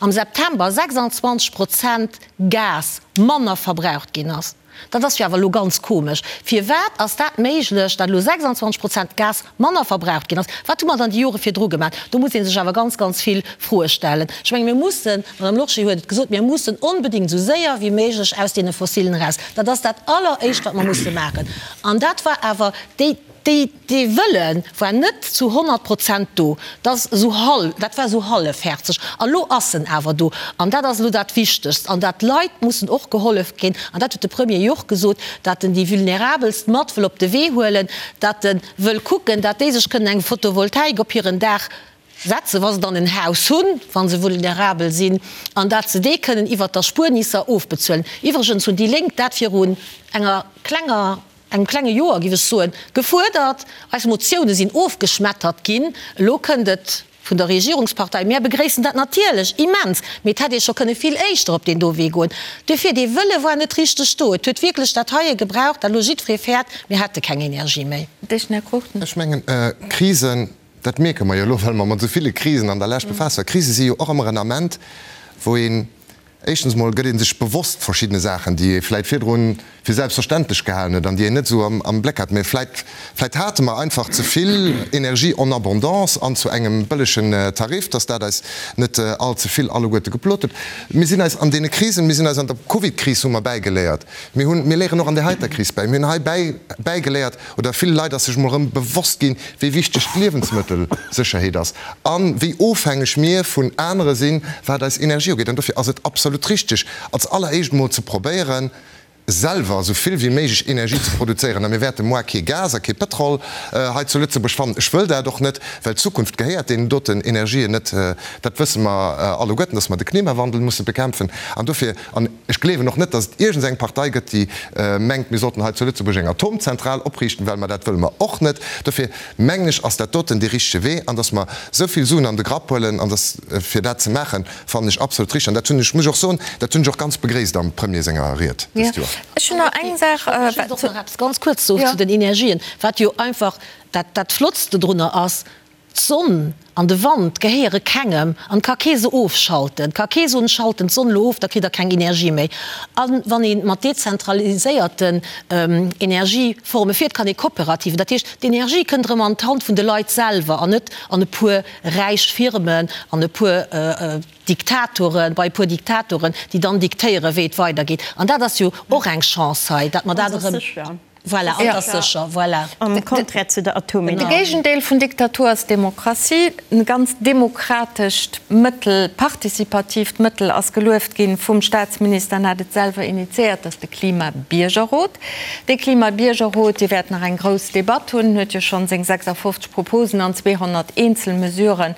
September 26 Prozent Gas manner verbraucht ginn ass. Dat ass jo awer elo ganz komesch. Firwat ass dat méiglech, datt elo 26 Prozent Gas manner verbraucht ginn ass? Wat hu mer dann déi Jore virdru gemaach? Do muss ee sech awer ganz, ganz vill Froe stellen. Ech menge mir mussen, d'Madame Lorsché huet et gesot, mir mussen onbedéngt esou séier wéi méiglech aus deene Fossilen eraus. Dat ass dat Alleréischt, wat mer musse maachen. An dat war awer déi. Déi, dee Wëlle war net zu 100 Prozent do. Dat ass esou hal, dat war esou hallefhäerzeg. A lo ass en awer do. An dat ass elo dat Wichtegst. An dat d'Leit mussen och gehollef ginn. An dat huet de Premier jo och gesot, dat en déi Vulnerabelst mat wëll op de Wee huelen, dat e wëll kucken, dat déi sech kënnen eng Photovoltaik op hiren Daach setzen, wa se dann en Haus hunn, wa se vulnerabel sinn, an dat se dee kënnen iwwert d'Erspuernisser ofbezuelen. Iwwregens hunn déi Lénk dat virun enger klenger engem klenge Joer, géif ech soen, gefuerdert. Eis Motioune sinn ofgeschmettert ginn. Elo kënnt et vun der Regierungspartei. Mär begréissen dat natierlech immens, mee et hätt ee scho kënne vill éischter op deen do Wee goen. Duerfir, dee Wëlle war net richteg do. Et huet wierklech dat heie gebraucht, dat elo jiddweree fäert, mir hätte keng Energie méi. Här Cruchten. Ech mengen, Krisen, dat mierke mer jo elo, well mer mat esou ville Krisen an der Lescht befaasst waren, Krise si jo och ëmmer en Ament, wou een, Éischtens emol gëtt ee sech bewosst verschiddene Saachen, déi ee vläit virdrun fir selbstverständlech gehalen huet an déi een net esou am Bléck hat. Mä vläit, vläit hate mer einfach ze vill Energie en abondance an zu engem bëllegen Tarif, dass dat eis net all ze vill alleguerte geplot huet. Mir sinn eis an deene Krisen, mir sinn eis an der Covidkris hu mer bäigeléiert, mir hunn, mir léieren och an där heiter Kris bäi, mir hunn hei bäi, bäigeléiert, oder ville Leit ass sech emol erëm bewosst ginn, wéi wichteg d'Liewensmëttelsécherheet ass a wéi ofhängeg mir vun anere sinn, wat eis Energie ugeet. An dofir ass et absolut richteg, als alleréischt emol ze probéieren, selwer esou vill wéi méiglech Energie ze produzéieren. A mir wäerte moar kee Gas a kee Pëtrol hei zu Lëtzebuerg fannen. Ech wëll dat och net, well d'Zukunft gehéiert deenen doten Energien net. Dat wësse mer alleguerten, dass mer de Klimawandel musse bekämpfen. An dofir, an Ech gleewen och net, datt et iergends eng Partei gëtt, déi mengt, mir sollten hei zu Lëtzebuerg eng Atomzentral opriichten, well mer dat wëlle mer och net. Dofir mengen ech, ass dat doten dee richtege Wee. An datt mer esou vill Suen an de Grapp huelen, an datt fir dat ze maachen, fannen ech absolut richteg. An dat hunn ech, muss ech och soen, dat hunn ech och ganz begréisst am Premier senger Ried dëst Joer. Ech hunn nach eng Saach. Ech wëllt och nach eppes ganz kuerz soen zu den Energien, wat jo einfach dat, dat Flottste drunner ass. D'Sonn an de Wand gehéiere kengem an et ka kee se ofschalten. Et ka kee soen, ech schalten d'Sonn elo of, da kritt der keng Energie méi. A wann ee mat dezentraliséierten Energieforme fiert, kann ee kooperativ, dat heescht d'Energie kënnt erëm an d'Hand vun de Leit selwer an net an e puer räich Firmen, an e puer Diktatoren, bei e puer Diktatoren, déi dann diktéieren, wéi et weidergeet. An dat ass jo och eng Chance hei, datt mer dat erëm. Voilà, an ass sécher, voilà. Am Contraire zu der Atomenergie. De Géigendeel vun Diktatur ass Demokratie. E ganz demokratescht Mëttel, participatiivt Mëttel ass gelueft ginn vum Staatsminister an hat et selwer initiéiert, dat ass de Klimabiergerrot. Dee Klimabiergerrot, dee wäert nach eng grouss Debatt hunn, huet jo schonn seng 56 Proposen an 200 eenzel Mesurë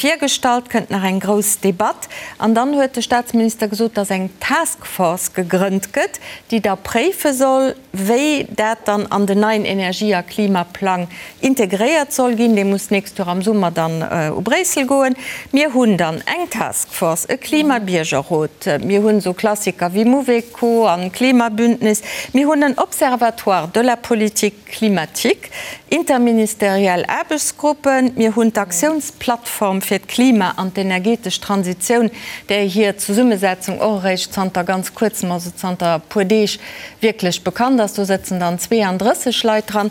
virgestallt, kënnt nach eng grouss Debatt. An dann huet de Staatsminister gesot, dass eng Task Force gegrënnt gëtt, déi da préife soll, wéi dat dann an den neien Energie a Klimaplang integréiert soll ginn. Dee muss d'nächst Joer am Summer dann u Bréissel goen. Mir hunn dann eng Task Force, e Klimabiergerrot, mir hunn esou Klassiker wéi Mouveco an Klimabündnis, mir hunn en Observatoire de la politique climatique, interministeriell Aarbechtsgruppen, mir hunn d'Aktiounsplattform fir d'Klima an d'energetesch Transitioun, där hir Zesummesetzung och eréischt zanter ganz Kuerzem, also zanter e puer Deeg, wierklech bekannt ass. Do sëtzen dann 32 Leit dran.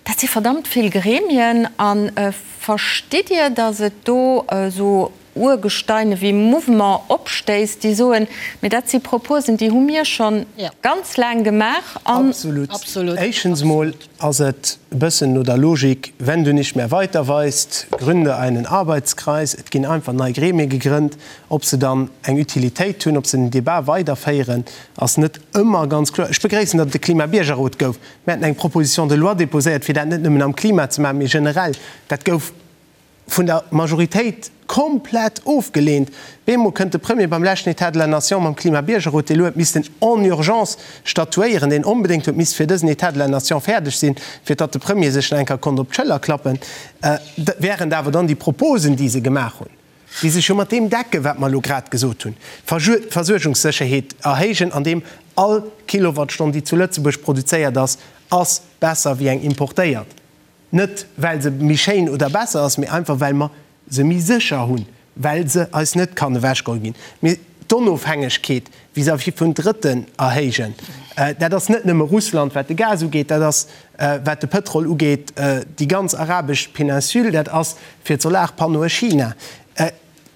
Dat si verdammt vill Gremien. A verstitt Dir, datt et do esou Urgesteine wéi Mouvement opstéisst, déi soen, mee dat si Proposen, déi hu mir scho ganz laang gemaach an. Absolut. Éischens emol ass et e bëssen no der Logik, Wenn du nicht mehr weiter weißt, gründe einen Arbeitskreis. Et ginn einfach nei Gremie gegrënnt. Ob se dann eng Utilitéit hunn, ob se den Debat weiderféieren, ass net ëmmer ganz kloer. Ech begréissen, datt et e Klimabiergerrot gouf. Mir haten eng Proposition de loi déposéiert, fir dat net nëmmen am Klima ze maachen, mee generell. Dat gouf vun der Majoritéit komplett ofgeleent. Bemol kënnt de Premier beim leschten État de la Nation mam Klimabiergerrot, dee lo huet missten en urgence statuéieren, deen onbedéngt huet misst fir dësen État de la Nation fäerdeg sinn, fir datt de Premier sech nach eng Kéier konnt op d'Schëller klappen, während awer dann déi Proposen, déi se gemaach hunn, déi sech jo mat deem decken, wat mer elo grad gesot hunn, Versuergungssécherheet erhéijen, andeem all Kilowattstonn, déi zu Lëtzebuerg produzéiert ass, ass besser wéi eng importéiert. Net well se méi schéin oder besser ass, mee einfach well mer se méi sécher hunn, well se eis net kann ewechgeholl ginn. Mee d'Onofhängegkeet vis-à-vis vun Drëtten erhéijen, dat ass net nëmme Russland, wat de Gas ugeet, dat ass, wat de Pëtrol ugeet, déi ganz arabesch Péninsule, dat ass fir d'Solarpannoe China.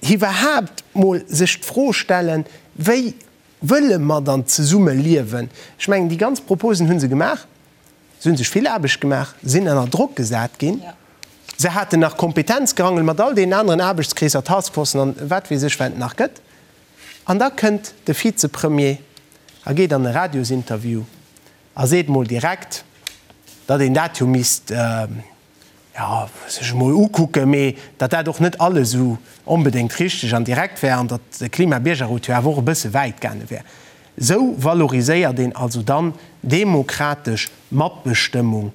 Iwwerhaapt mol sech d'Fro stellen, wéi wëlle mer dann zesumme liewen? Ech mengen, déi ganz Proposen hu se gemaach. Se hu sech vill Aarbecht gemaach, sinn ënner Drock gesat ginn. Se haten nach Kompetenzgerangel mat all deenen aneren Aarbechtskreesser, Taskforcen an wat weess ech, wat et nach gëtt. An da kënnt de Vizepremier a geet an e Radiosinterview a seet mol direkt, datt een dat jo misst, jo, sech emol ukucken, mee datt dat och net alles esou onbedéngt richteg an direkt wär an datt de Klimabiergerrot jo awer och e bësse wäit gaange wär. Esou valoriséiert een also dann demokratesch Matbestëmmung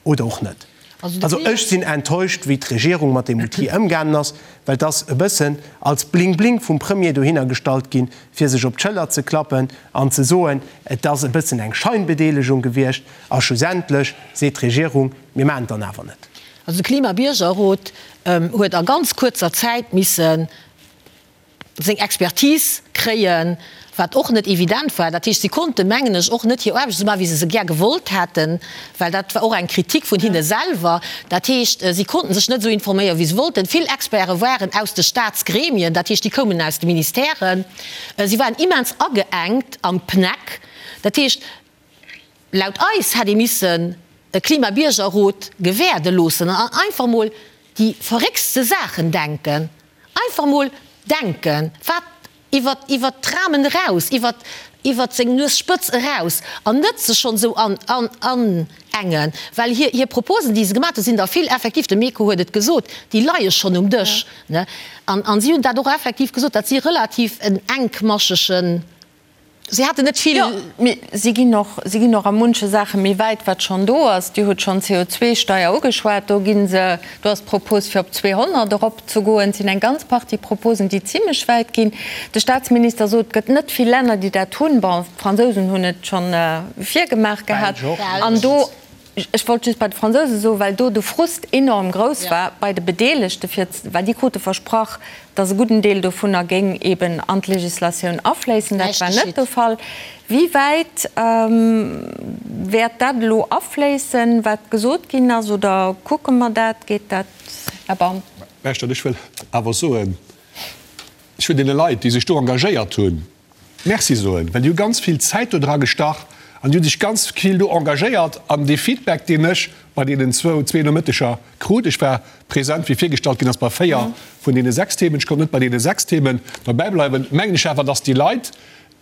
oder och net. Also ech sinn enttäuscht, wéi d'Regierung mat deem Outil ëmgaangen ass, well et ass e bëssen als Bling-Bling vum Premier dohinner gestallt ginn, fir sech op d'Schëller ze klappen an ze soen, et ass e bëssen eng Scheinbedeelegung gewiescht. A schlussendlech seet d'Regierung, mir maachen et dann awer net. Also de Klimabiergerrot huet a ganz kuerzer Zäit misse seng Expertise kréien, wat och net evident war. Dat heescht, si konnten, mengen ech, och net hir Aarbecht esou maachen, wéi se se gär gewollt hätten, well dat war och eng Kritik vun hinne selwer. Dat heescht, si konnten sech net esou informéieren, wéi se wollten. Vill Experte waren aus de Staatsgremien, dat heescht, déi koumen aus de Ministèren. Si waren immens ageengt am PNEC. Dat heescht, Laut eis hätt ee missen e Klimabiergerrot gewäerde loossen an einfach mol déi verréckste Saachen denken. Einfach mol denken, wat iwwer iwwer d'Ramen eraus, iwwer iwwer seng Nuesspëtz eraus an net sech schonn esou an an anengen. Well hir hir Proposen, déi se gemaat hunn, sinn der vill effektiv, de Meco huet et gesot, déi leie schonn um Dësch, ne. An an si hunn dat och effektiv gesot, dat si relativ en enkmaschegen Si haten net vill. Jo, mee si ginn och, si ginn och a munche Saache méi wäit, wat schonn do ass. Dir hutt schonn d'CO2-Steier ugeschwat. Do gi se, do ass d'Propos, fir op 200 eropzegoen. Et sinn eng ganz Partie Proposen, déi zimlech wäit ginn. De Statsminister sot, et gëtt net vill Länner, déi dat hunn. Bon, d'Fransousen hunn et schonn virgemaach gehat. An do. Ech wollt just bei de Fransouse soen, well do de Frust enorm grouss war bei de Bedeelegte, fir, well déi krute versprach, datt e gudden Deel dovunner géing eben an d'Législatioun afléissen. Dat war net de Fall. Wéi wäit wäert dat elo afléissen, wat gesot ginn ass, oder kucke mer dat? Geet dat, Här Baum? Mä ech wëll awer soen, ech wëll deene Leit, déi sech do engagéiert hunn, Merci soen, well déi hu ganz vill Zäit do dra gestach an déi hu sech ganz vill do engagéiert. An dee Feedback, deen ech bei deenen zwou, zwee Nomëtteger krut, ech war present, wéi virgestallt ginn ass, bei véier vun deene sechs Themen, ech konnt net bei deene sechs Themen derbäi bleiwen, mengen ech awer, dass déi Leit,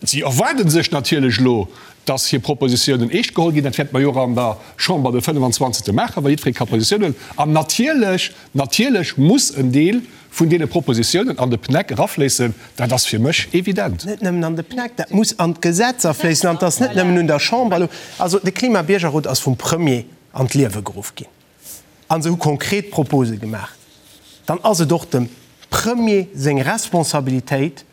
si erwaarde sech natierlech elo, dass hir Propositionen eescht geholl ginn. Dat wäerte mer jo och an der Chamber de 25. maachen, wa jiddweree ka Positiounen. An natierlech, natierlech muss en Deel vun deene Propositionen an de PNEC erafléissen, dat ass fir mech evident. Net nëmmen an de PNEC, dat muss an d'Gesetz afléissen. An et ass net nëmmen un der Chamber elo. Also de Klima-Biergerrot ass vum Premier an d'Liewe geruff ginn a se hu konkret Propose gemaach. Dann ass et och dem Premier seng Responsabilitéit,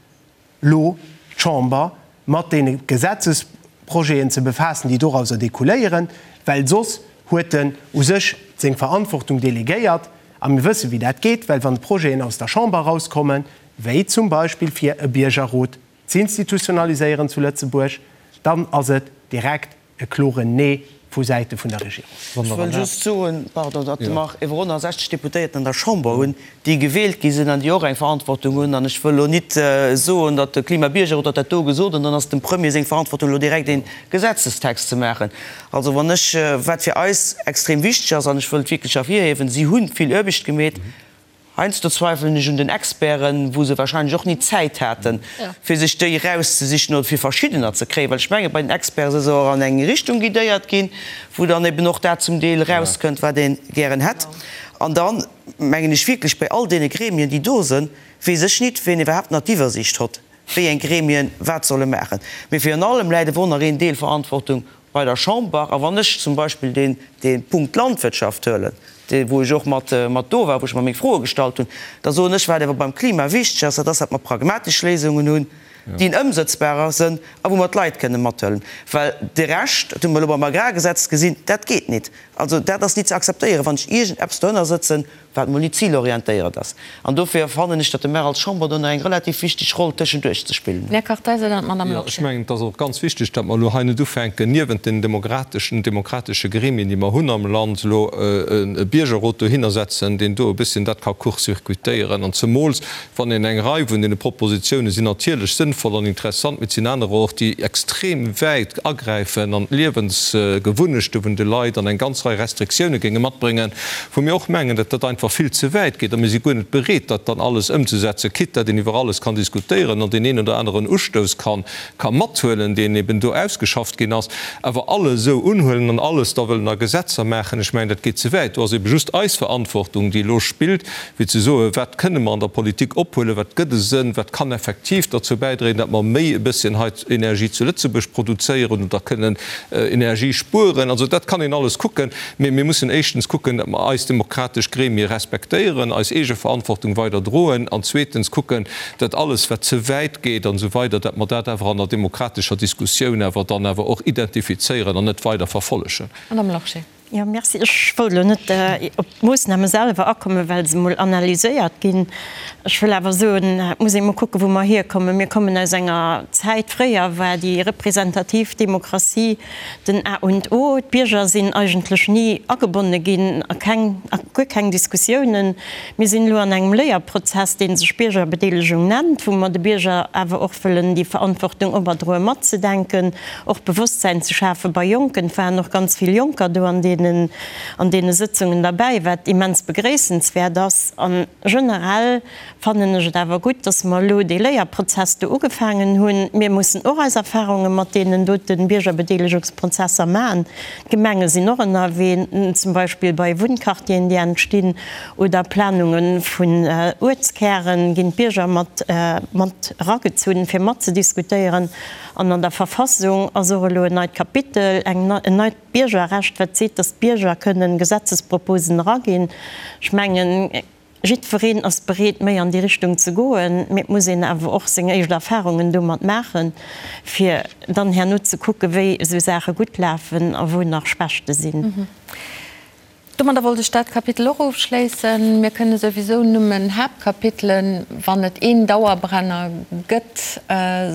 lo d'Chamber mat deene Gesetzesprojeten ze befaassen, déi dorauser découléieren, well soss huet en u sech seng Verantwortung delegéiert. A mir wësse wéi dat geet, well wann d'Projeten aus der Chamber erauskommen, wéi zum Beispill fir e Biergerrot z'institutionaliséieren zu Lëtzebuerg, dann ass et direkt E kloren Nee vu Säite vun der Regierung. Ech wëll just soen, pardon, datt mer iwwer 160 Deputéierten an der Chamber hunn, déi gewielt gi sinn an déi och eng Verantwortung hunn. An ech wëll elo nit soen, datt de Klimabiergerrot huet dat do gesot an dann ass dem Premier seng Verantwortung elo direkt ee Gesetzestext ze maachen. Also wann ech, wat fir eis extrem wichteg ass, an ech wëll et wierklech ervirhiewen, si hu vill Aarbecht gemeet, Heiansdo zweifelen ech un den Experten, wou se wahrscheinlech och ni d'Zäit haten, fir sech déi erauszesichen oder fir verschiddener ze kréien, well ech menge bei den Experten si se och an eng Richtung guidéiert ginn, wou dann eben och dat zum Deel erauskënnt, wat ee gären hätt. An da mengen ech wierklech, bei all deene Gremien, déi do sinn, weess ech nit, wien iwwerhaapt nach d'Iwwersiicht hott, wéi eng Gremien wat solle maachen. Mee virun allem läit ewor nach een Deel Verantwortung bei der Chamber, a wann ech zum Beispill deen, dee Punkt Landwirtschaft huelen, dee wou ech och mat, mat do war, wou ech mer meng Froe gestallt hunn, da soen ech, wat awer beim Klima wichteg ass, dat ass, datt mer pragmatesch Léisungen hunn, déi ëmsëtzbarer sënn a wou mer d'Leit kënnen mathuelen. Well de Rescht, dat hu mer elo beim Agrargesetz gesinn, dat geet nit. Also dat ass nit ze akzeptéieren, wann ech iergendeppes dohënner sëtzen, wat mol nit zilorientéiert ass. An dofir fannen ech, datt de mer als Chamber do nach eng relativ wichteg Roll tëschenduerch ze spillen hunn. Här Kartheiser, dann d'Madame Jo, ech mengen, et ass och ganz wichteg, datt mer elo hei net ufänken, niewent den demokrateschen, demokratesche Gremien, déi mer hunn am Land, elo e Biergerrot dohinner setzen, deen do e bësschen dat ka court-circuitéieren. An zemools wann een eng Rei vun deene Propositione sinn natierlech sënnvoll an interessant, mee et sinn anerer och, déi extrem wäit agräifen an d'Liewensgewunnechte vun de Leit an eng ganz Rei Restriktioune géinge matbréngen, wou mir och mengen, datt dat einfach vill ze wäit geet a mir si guer net bereet, dat dann alles ëmzesetzen, quitte datt een iwwer alles kann diskutéieren an deen een oder aneren Ustouss kann ka mathuelen, deen eben do ausgeschafft ginn ass, awer alles esou unhuelen an alles da wëllen a Gesetzer maachen, ech mengen, dat geet ze wäit. Do ass ebe just eis Verantwortung, déi elo spillt, fir ze soen, wat kënne mer an der Politik ophuelen, wat gëtt e Sënn, wat kann effektiv derzou bäidréien, datt mer méi e bësschen hei Energie zu Lëtzebuerg produzéieren oder kënnen Energie spueren. Also dat kann een alles kucken, mee mir mussen éischtens kucken, datt mer eis demokratesch Gremie respektéieren, eis eege Verantwortung weider droen an zweetens kucken, datt alles, wat ze wäit geet an esou weider, datt mer dat awer an der demokratescher Diskussioun awer dann awer och identifizéieren an net weider verfollegen. Madame Lorsché. Jo, merci. Ech wollt elo net op d'Moossname selwer akommen, well se emol analyséiert ginn. Ech wëll awer soen, et muss ee mol kucken, wou mer hierkommen. Mir kommen aus enger Zäit, fréier war déi representativ Demokratie den A und O. D'Bierger sinn eigentlech ni agebonne ginn a keng, a guer keng Diskussiounen. Mir sinn elo an engem Léierprozess, dee sech Biergerbedeelegung nennt, wou mer de Bierger awer och wëllen déi Verantwortung operdroen, matzedenken, och Bewosstsäin ze schafe bei Jonken. Et waren och ganz vill Jonker do an deenen, an deene Sëtzungen derbäi, wat immens begréissenswäert ass. A generell fannen ech et awer gutt, dass mer elo dee Léierprozess do ugefaangen hunn. Mir mussen och eis Erfahrunge mat deenen dote Biergerbedeelegungsprozesser maachen. D'Gemenge sinn och ënnerwee, zum Beispill bei Wunnquartieren, déi entstinn, oder Planunge vun Uertskären ginn d'Bierger mat mat eragezunn, fir matzediskutéieren. An an der Verfassung ass och elo en neit Kapitel, eng en neit Biergerrecht, wat seet, datt d'Bierger kënnen Gesetzesproposen eraginn. Ech mengen. Jiddwereen ass bereet, méi an déi Richtung ze goen, mee et muss een awer och seng éischt Erfahrungen domat maachen, fir dann herno ze kucken, wéi esou Saache gutt lafen a wou nach Schwächte sinn. Domadder wollt ech dat Kapitel och ofschléissen. Mir kënne souwisou nëmmen Haaptkapitelen, wann et een Dauerbrenner gëtt,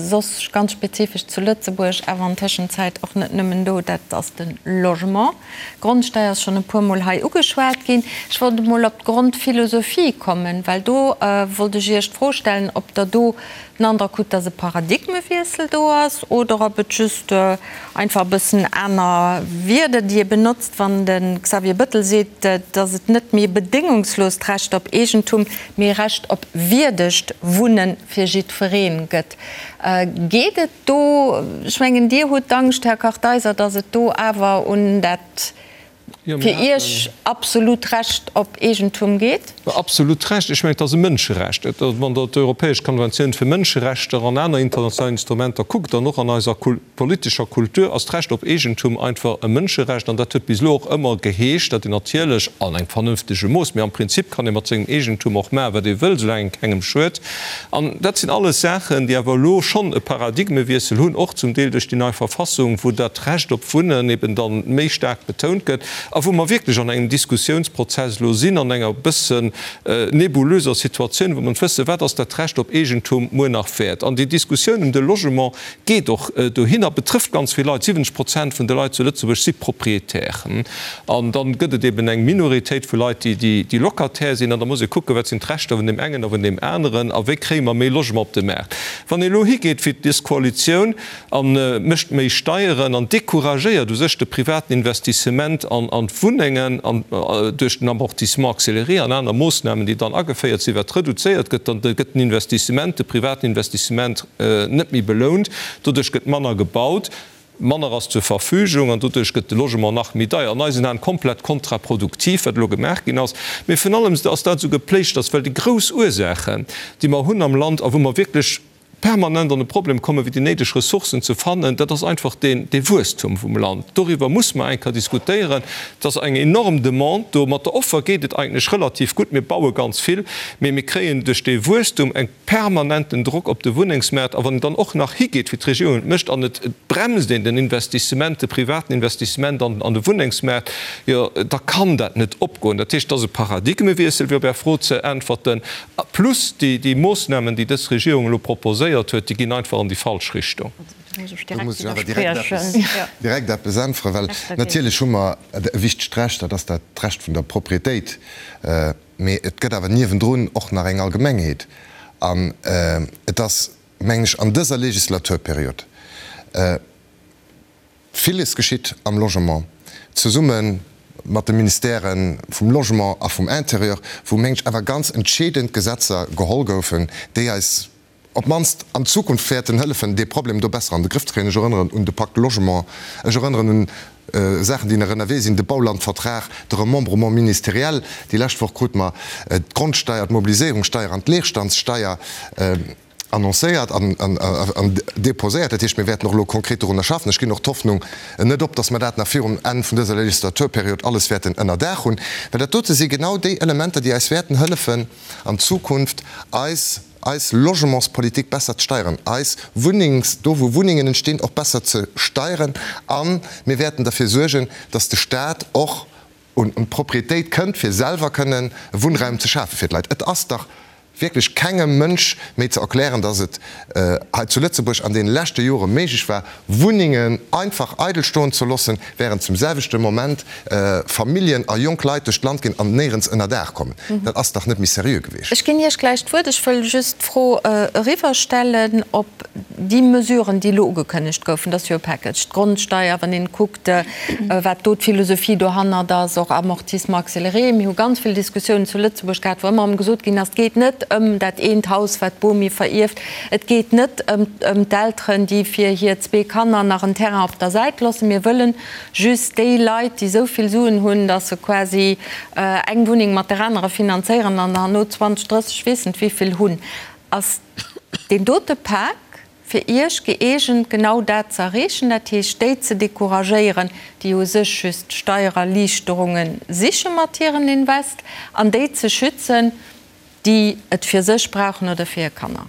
soss ganz spezifesch zu Lëtzebuerg, awer an Tëschenzäit och net nëmmen do, dat ass de Logement. D'Grondsteier ass schonn e puermol hei ugeschwat ginn. Ech wollt emol op d'Grondphilosophie kommen, well do wollt ech Iech d'Fro stellen, ob Der do den Androck hutt, dass e Paradigmewiessel do ass oder ob et just einfach e bëssen aner Wierder, déi ee benotzt, wann de Xavier Bettel seet, dass et net méi e bedéngungslost Recht op Eegentum, mee e Recht op wierdegt Wunne fir jiddweree gëtt. Geet et do, ech mengen, Dir hutt d'Angscht, Här Kartheiser, dass et do awer un dat fir Iech absolut Recht op Eegentum geet? Absolut Recht? Ech mengen, et ass e Mënscherecht. Wann Der d'Europäesch Konventioun fir Mënscherechter an aner international Instrumenter kuckt, an och an eiser politescher Kultur, ass d'Recht op Eegentum einfach e Mënscherecht. An dat huet bis elo och ëmmer geheescht, datt een natierlech an engem vernënftege Mooss, mee am Prinzip kann ee mat sengem Eegentum och maachen, wat ee wëll, soulaang een kengem schued. An dat sinn alles Saachen, déi awer elo schonn e Paradigmewiessel hunn, och zum Deel duerch déi nei Verfassung, wou dat Recht op Wunnen eben dann méi staark betount gëtt a wou mer wierklech an engem Diskussiounsprozess elo sinn, an enger e bëssen nebulöser Situatioun, wou mer net wëssen, wat ass dat Recht op Eegentum muer nach wäert. An déi Diskussioun ëm de Logement geet och dohinner, betrëfft ganz vill Leit, 70 Prozent vun de Leit zu Lëtzebuerg si Propriétaire. An dann gëtt et eben eng Minoritéit vu Leit, déi Locataire sinn. An da muss ee kucken, wat sinn d'Rechter vun deem engen a vun deem aneren a wéi kréie mer méi Logement op de Maart. Wann ee elo higeet wéi dës Koalitioun a mécht méi Steieren an decouragéiert u sech de privaten Investissement an d'Wunnengen an duerch den Amortissement accéléré an aner Moossnamen, déi dann ageféiert sinn, wat reduzéiert gëtt, dann gëtt den Investissement, de privaten Investissement net méi belount. Doduerch gëtt manner gebaut. Manner ass zur Verfügung an doduerch gëtt de Logement nach méi deier. An eisen Aen komplett kontraproduktiv, wat elo gemaach ginn ass. Mee virun allem ass dat esou gepléischters, well déi grouss Ursaachen, déi mer hunn am Land a wou mer wierklech permanent an e Problem kommen, fir déi néideg Ressourcen ze fannen, dat ass einfach deen, dee Wuesstum vum Land. Doriwwer muss mer eng Kéier diskutéieren. Et ass eng enorm Demande do. Mat der Offer geet et eigentlech relativ gutt. Mir baue ganz vill, mee mir kréien duerch dee Wuesstum eng. permanenten Drock op de Wunnengsmaart, a wann een dann och nach higeet, wéi d'Regierung et mécht, an et bremst een den Investissement, de privaten Investissement an de Wunnengsmaart, jo da kann dat net opgoen. Dat heescht, et ass e Paradigmewiessel, fir op Är Fro ze äntwerten, plus déi Moossnamen, déi dës Regierung elo proposéiert huet, déi ginn einfach an déi falsch Richtung. Do muss ech awer direkt eppes äntweren, well natierlech hu mer e wichtegt Recht, dat ass dat d'Recht vun der Propriétéit. Mee et gëtt awer niewendrun och nach eng Allgemengheet. An et ass, mengen ech, an dëser Legislaturperiod villes geschitt am Logement, zesumme mat de Ministèrë vum Logement a vum Intérieur, wou, mengen ech, awer ganz entscheedend Gesetzer geholl goufen, déi eis op d'mannst an Zukunft wäerten hëllefen, dee Problem do besser an de Grëff ze kréien. Ech erënneren un de Pacte Logement, ech erënneren un Saachen, déi nach ënnerwee sinn, de Baulandvertrag, de Remembrement ministériel. Déi lescht Woch krute mer d'Grondsteier, d'Mobiliséierungssteier an d'Leerstandssteier annoncéiert an déposéiert. Dat heescht, mir wäerten och elo konkret dorunner schaffen. Ech ginn och d'Hoffnung net op, dass mer dat nach virum Enn vun dëser Legislaturperiod alles wäerten ënner Daach hunn, well dat dote si genau déi Elementer, déi eis wäerten hëllefen, an Zukunft eis eis Logementspolitik besser ze steieren, eis Wunnengs, do wou Wunnengen entstinn, och besser ze steieren a mir wäerten derfir suergen, dass de Stat och un d'Propriétéit kënnt, fir selwer kënnen Wunnraum ze schafe fir d'Leit. Et ass dach wierklech kengem Mënsch méi ze erklären, dass et hei zu Lëtzebuerg an deene leschte Jore méiglech war, Wunnengen einfach eidel stoen ze loossen, während zum selwechte Moment Familljen a jonk Leit duerch d'Land ginn an néierens ënner Daach kommen. Dat ass dach net méi seriö gewiescht. Ech ginn Iech gläich d'Wuert. Ech wëll just d'Fro eriwwerstellen, ob déi Mesuren, déi elo ugekënnegt goufen, dat ass jo e Package, d'Grondsteier, wann een kuckt, wat do d'Philosophie dohannert ass, och Amortissement accéléré, mir hu ganz vill Diskussiounen zu Lëtzebuerg gehat, wou ëmmer erëm gesot ginn ass, et geet net ëm dat eent Haus, wat d'Bomi verierft, Et geet net ëm d'Elteren, déi fir hir zwee Kanner nach en Terrain op der Säit loossen. Mir wëllen just déi Leit, déi esou vill Suen hunn, datt se quasi eng Wunneng mat der anerer finanzéieren an herno 20, 30, weess net wéivill hunn. Ass deen dote Pak fir Iech gëeegent, genau dat ze erreechen, dat heescht déi ze decouragéieren, déi u sech just Steiererliichterunge siche mat hiren Invest, an déi ze schützen? déi et fir sech brauchen oder fir hir Kanner.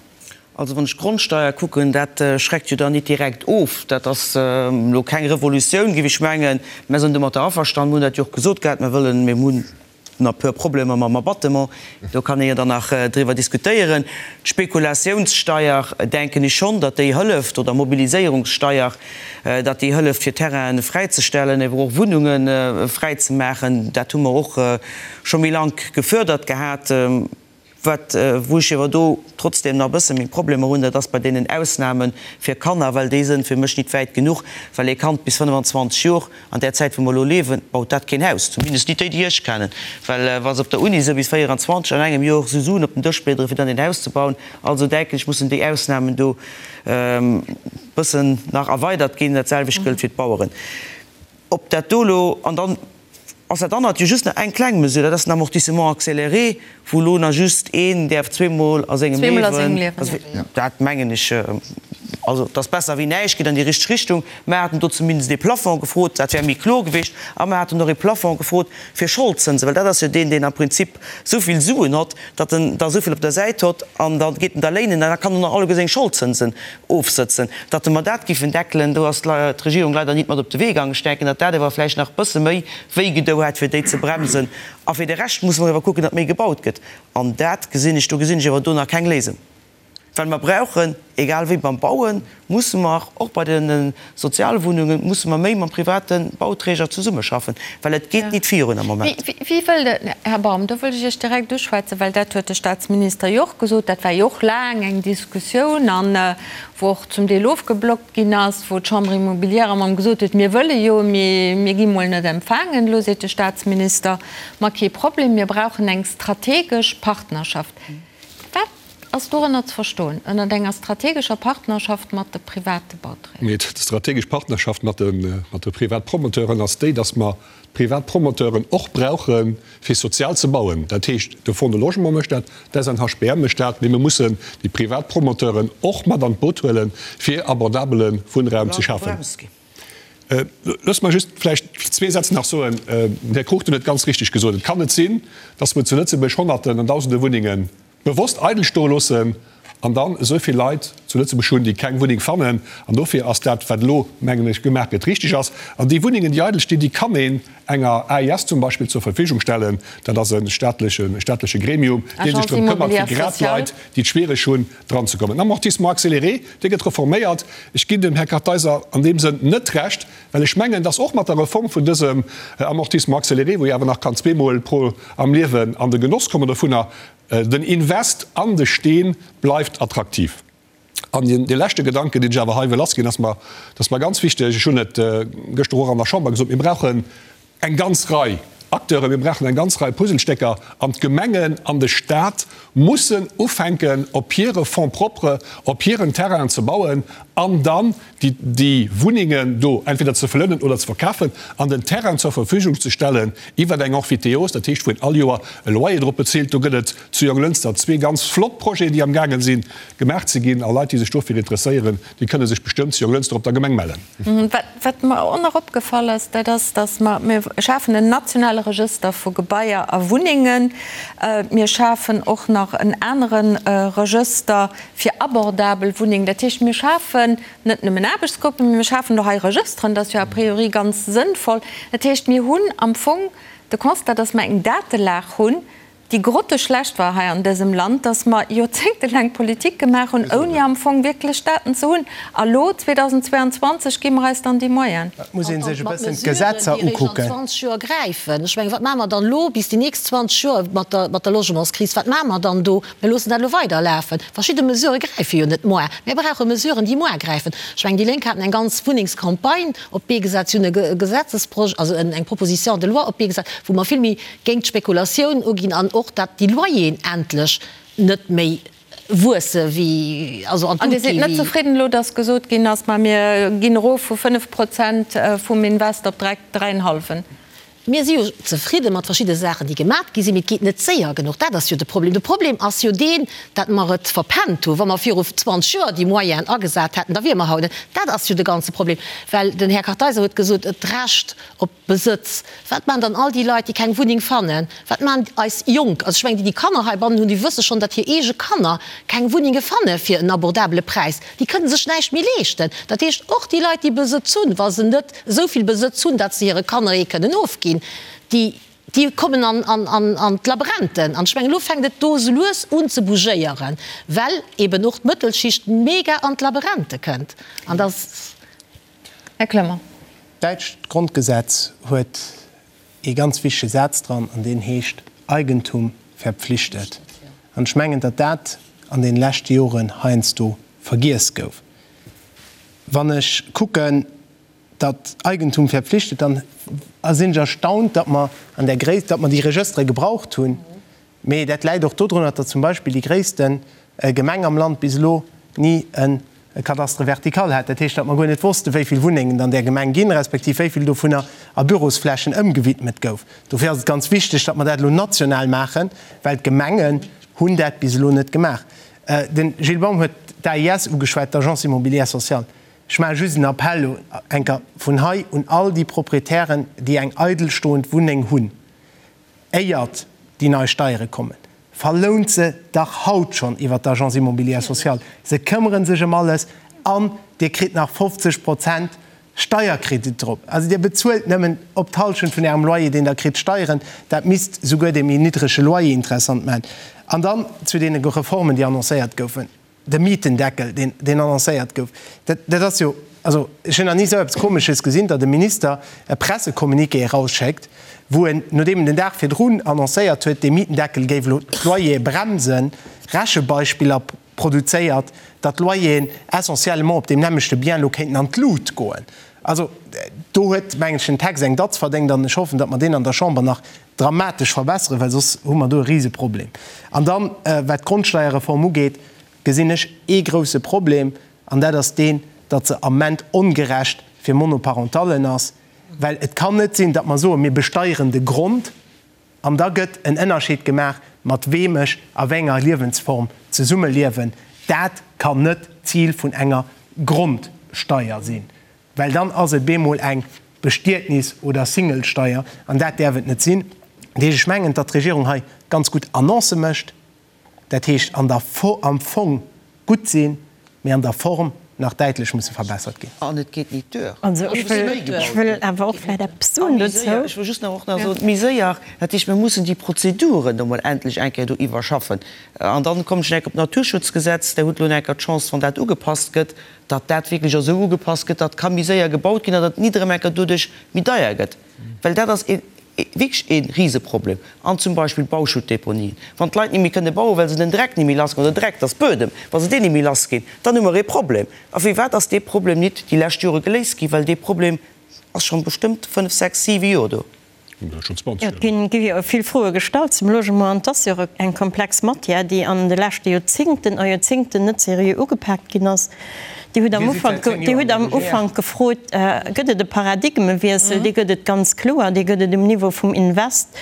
Also wann ech d'Grondsteier kucken, dat schreckt jo dann nit direkt of. Dat ass elo keng Revolutioun, géif ech mengen. Mär sinn domatter averstanen, mir hunn dat jo och gesot gehat, mir wëllen, mir hunn nach e puer Problemer mam Abattement, do kann ee jo dann nach driwwer diskutéieren. D'Spekulatiounssteier, denken ech schonn, datt déi hëlleft, oder Mobiliséierungssteier, datt déi hëlleft fir Terrainen fräizestellen, ewer och Wunnunge fräizemaachen. Dat hu mer och scho méi lank gefördert gehat. Wat, wou ech ewer do trotzdem nach e bësse meng Problemer hunn, dat ass bei deenen Ausnahme fir Kanner, well déi sënn fir mech nit wäit genuch, well ee Kand bis 25 Jor, an där Zäit wou mer elo liewen, baut dat keen Haus, zumindest nit déi, déi ech kennen, well wa se op der Uni sënn bis 24 an engem Jor esou Suen op den Dësch bliederen, fir dann een Haus ze bauen. Also denken ech, mussen déi Ausnahmen do e bëssen nach erweidert ginn. Dat selwecht gëllt fir d'Baueren. Ob dat do elo, an dann ass dat anert jo just nach eng kleng Mesure, dat ass den Amortissement accéléré, wou elo nach just een däerf zweemol a sengem Liewen, dat mengen ech, also et ass besser wéi näischt, geet an déi richteg Richtung. Mer haten do zumindest ee Plafond gefrot, dat wär méi kloer gewiescht. A mer haten och ee Plafond gefrot fir Scholdzënsen, well dat ass jo deen, deen am Prinzip esou vill Suen hott, datt en der esou vill op der Säit hott an da geet en der léinen an da kann en och alleguer seng Scholdzënsen ofsëtzen. Datt mer dat giffen deckelen, do ass d'Regierung leider nit mat op de Wee gaangen. Ech denken, datt dat ewer vläicht nach e bësse méi wéi gedou hätt, fir déi ze bremsen. A fir de Rescht musse mer ewer kucken, datt méi gebaut gëtt. An dat gesinn ech, do gesinn ech ewer do nach keng Léisung. Well mer brauchen, egal wéi beim Bauen, musse mer, och bei de Sozialwunnungen, musse mer méi mam private Bauträger zesummeschaffen, well et geet nit virun am Moment. Wie wëll de, Här Baum, do wëll ech Iech direkt uschwätzen, well dat huet de Statsminister jo och gesot, dat war jo och laang eng Diskussioun an wou och zum Deel ofgeblockt ginn ass, wou d'Chambre immobilière ëmmer gesot huet, mir wëlle jo, mee mir gi mol net empfaangen. Elo seet de Statsminister, ma kee Problem, mir brauchen eng strategesch Partnerschaft. Wat ass dorënner ze verstoen, ënnert enger strategescher Partnerschaft mat de private Bauträger? Mee d'strategesch Partnerschaft mat de Privatpromoteuren ass déi, datt mer d'Privatpromoteuren och brauche fir sozial ze bauen. Dat heescht, de Fonds de Logement mécht dat, d'SNHBM mécht dat, mee mir mussen déi Privatpromoteuren och mat an d'Boot huelen, fir abordabele Wunnraum ze schafen. Loosst mer just vläicht zwee Sätz nach soen. Den Här Cruchten huet ganz richtig gesot, Et kann net sinn, dass mer zu Lëtzebuerg Honnerten an Dausende Wunnenge bewosst eidel stoe loossen an dann esou vill Leit zu Lëtzebuerg hunn, déi keng Wunneng fannen. An dofir ass dat, wat elo, mengen ech, gemaach gëtt, richtig ass. An déi Wunnengen, déi eidel stinn, déi kann een enger AIS zum Beispill zur Verfügung stellen. Dat ass e staatleche Gremium, dee sech drëm këmmert, fir grad Leit, déi et schwiereg hunn, dran ze kommen. Den Amortissement accéléré, dee gëtt reforméiert. Ech ginn dem Här Kartheiser an deem Sënn net Recht, well ech mengen, dass och mat der Reform vun dësem Amortissement accéléré, wou ee awer nach kann zweemol pro am Liewen an de Genoss kommen dovunner, den Invest an de Steen bleift attraktiv. An dee leschte Gedanken, deen ech awer hei wëll lassginn, ass mer, dat ass mer ganz wichteg, ech hunn et gëschter och an der Chamber gesot, Mir brauchen eng ganz Rei Acteuren, mir brauchen eng ganz Rei Puzzlestécker an d'Gemengen an de Stat mussen ufänken, op hire Fonds propres, op hiren Terrainen ze bauen an dann déi Wunnengen do entweder ze verlounen oder ze verkafen an den Terrain zur Verfügung ze stellen iwwer eng Emphytéose, dat heescht, wou een all Joer e Loyer drop bezilt. Do gëtt et zu Jonglënster zwee ganz flott Projeten, déi amgaange sinn gemaach ze ginn a Leit, déi sech dofir interesséieren, déi kënne sech bestëmmt zu Jonglënster op der Gemeng mellen. Wat mer och nach opgefall ass, dat ass, datt mer, mir schafen en nationale Regëster vu Gebaier a Wunnengen. Mir schafen och nach en anere Regëster fir abordabel Wunnengen. Dat heescht, mir schafen net nëmmen Aarbechtsgruppen, mee mir schafen do hei Regësteren. Dat ass jo a priori ganz sënnvoll. Dat heescht, mir hunn am Fong de Constat, datt mer eng Datelag hunn, déi grotteschlecht war hei an dësem Land, dass mer joerzéngtelaang Politik gemaach hunn, ouni am Fong wierklech Daten ze hunn. A lo, 2022, gi mer eis dann déi Moyenen. Et muss ee sech e bëssen d'Gesetzer ukucken. Mat Mesuren, déi eréischt an 20 Joer gräifen. Ech mengen, wat maache mer dann elo bis déi nächst 20 Joer mat der, mat der Logementskris? Wat maache mer dann do? Mir loossen dat elo weiderlafen. Verschidde Mesurë gräife jo net moar. Mir brauche Mesuren, déi moar gräifen. Ech mengen, déi Lénk haten eng ganz Wunnengscampagne op d'Bee gesat. Si hunn e Gesetzesprojet, also eng Proposition de loi op d'Bee gesat, wou mer vill méi géint d'Spekulatioun uginn an och dat déi Loyeren endlech net méi wuesse wéi, also an d'Lut An Dir gi sidd net wéi. zefridden elo, datt gesot ginn ass, ma mir ginn erof vu 5 Prozent vum Invest op dräi, dräienhallwen? Mir si jo zefridde mat verschidde Saachen, déi gemat gi sinn, mee et geet net séier genuch. Dat ass jo de Problem. De Problem ass jo deen, datt mer et verpennt hunn. Wa mer viru 20 Joer déi Moyenen agesat hätten, da wiere mer haut net. Dat ass jo de ganze Problem. Well den Här Kartheiser huet gesot, d'Recht op Besëtz. Wat maachen dann all déi Leit, déi keng Wunneng fannen? Wat maachen eis Jonk? Also ech mengen, déi, déi Kanner heibannen hunn, déi wësse schonn, datt hir eege Kanner keng Wunnenge fanne fir en abordabele Präis. Déi kënne sech näischt méi leeschten. Dat heescht, och déi Leit, déi Besëtz hunn, wa se net esou vill Besëtz hunn, datt se hire Kanner ee kënnen ofginn, déi, déi kommen an, an, an, an d'Labrenten. An ech mengen, elo fänkt et do esou lues un ze bougéieren, well eben och d'Mëttelschicht mega an d'Laberente kënnt. An da. Här Clement. D'däitscht Grondgesetz huet ee ganz wichtege Saz dran, an deen heescht, Eigentum verpflichtet. An ech mengen, datt dat an deene leschte Joren heiansdo vergiess gouf. Wann ech kucken, datt Eigentum verpflichtet, dann sinn ech erstaunt, datt mer an där Gréisst, datt mer déi Regëstere gebraucht hunn. Mee dat läit och dodrunner, datt zum Beispill déi gréisste Gemeng am Land bis elo ni e Cadastre vertical hat. Dat heescht, datt mer guer net wossten, wéi vill Wunnengen et an där Gemeng ginn, respektiv wéi vill dovunner a Bürosflächen ëmgewidmet gouf. Dofir ass et ganz wichteg, datt mer dat elo national maachen, well d'Gemengen hunn dat bis elo net gemaach. De Gilles Baum huet d'AIS ugeschwat, d'Agence immobilière sociale. Ech maache just en Appell elo eng Kéier vun hei un all déi Proprietären, déi eng eidelstoend Wunneng hunn, Éiert déi nei Steiere kommen, verlount se dach haut schonn iwwer d'Agence immobilière sociale. Se këmmere sech ëm alles an Dir kritt nach 50 Prozent Steierkredit drop. Also Dir bezuelt nëmmen op d'Hallschent vun Ärem Loyer, deen Der kritt, Steieren. Dat misst souguer dee méi niddrege Loyer interessant maachen. An dann zu deene Reformen, déi annoncéiert goufen. De Mietendeckel, deen, deen annoncéiert gouf, dat, dat ass jo, also ech hunn nach ni esou eppes Komesches gesinn, datt e Minister e Pressecommuniqué erausschéckt, wou en, nodeem en den Dag virdrun annoncéiert huet, dee Mietendeckel géif elo d'Loyere bremsen, Rechebeispiller produzéiert, datt d'Loyeren essentiellement op deem nämmlechte Bien elo kéinten an d'Lut goen. Also do huet, mengen ech, den Text eng Datz verdéngt an ech hoffen, datt mer deen an der Chamber nach dramatesch verbesseren, well soss hu mer do e Riseproblem. An dann, wat d'Grondsteierreform ugeet, gesinn ech ee grouse Problem, an dat ass deen, datt se am Ament ongerecht fir Monoparentallen ass, well et kann net sinn, datt mer soen, mir besteieren de Grond, an da gëtt en Ënnerscheed gemaach, mat weem ech a wéi enger Liewensform zesummeliewen. Dat kann net d'Zil vun enger Grondsteier sinn. Well dann ass et bemol eng Bestietnis oder Singlesteier, an dat däerf et net sinn. Dat heescht, ech mengen, datt d'Regierung hei ganz gutt Annoncë mécht, dat heescht an der am Fong gutt sinn, mee an der Form nach däitlech musse verbessert ginn. An et geet nit duer. Also ech wëll awer och vläicht eppes soen dozou. Ech wëll just nach och nach soen, méi séier, dat heescht, mir mussen déi Prozeduren do mol endlech eng Kéier do iwwerschaffen. An dann kommen ech nach eng Kéier op d'Naturschutzgesetz. Der hutt elo nach eng Kéier d'Chance, wann dat ugepasst gëtt, datt dat wierklech esou ugepasst gëtt, datt ka méi séier gebaut ginn an datt Nidderemecke doduerch méi deier gëtt, well dat ass ee wierklech ee Riseproblem. An zum Beispill d'Bauschuttdeponien, wann d'Leit ni méi kënne bauen, well se den Dreck ni méi lass ginn, oder Dreck, dat ass Buedem, wa se deen ni méi lass ginn, dann hu mer ee Problem. A firwat ass dee Problem nit déi lescht Jore geléist ginn? Well dee Problem ass schonn bestëmmt fënnf, sechs, siwe Joer do. Et gi jo vill Froe gestallt zum Logement an et ass jo och eng komplex Matière, déi an de leschte Joerzingten a Joerzingten net seriö ugepaakt ginn ass. Dir hutt am Ufank, Dir hutt am Ufank gefrot, Gëtt et e Paradigmewiessel? Dee gëtt et ganz kloer, dee gëtt et um Niveau vum Invest,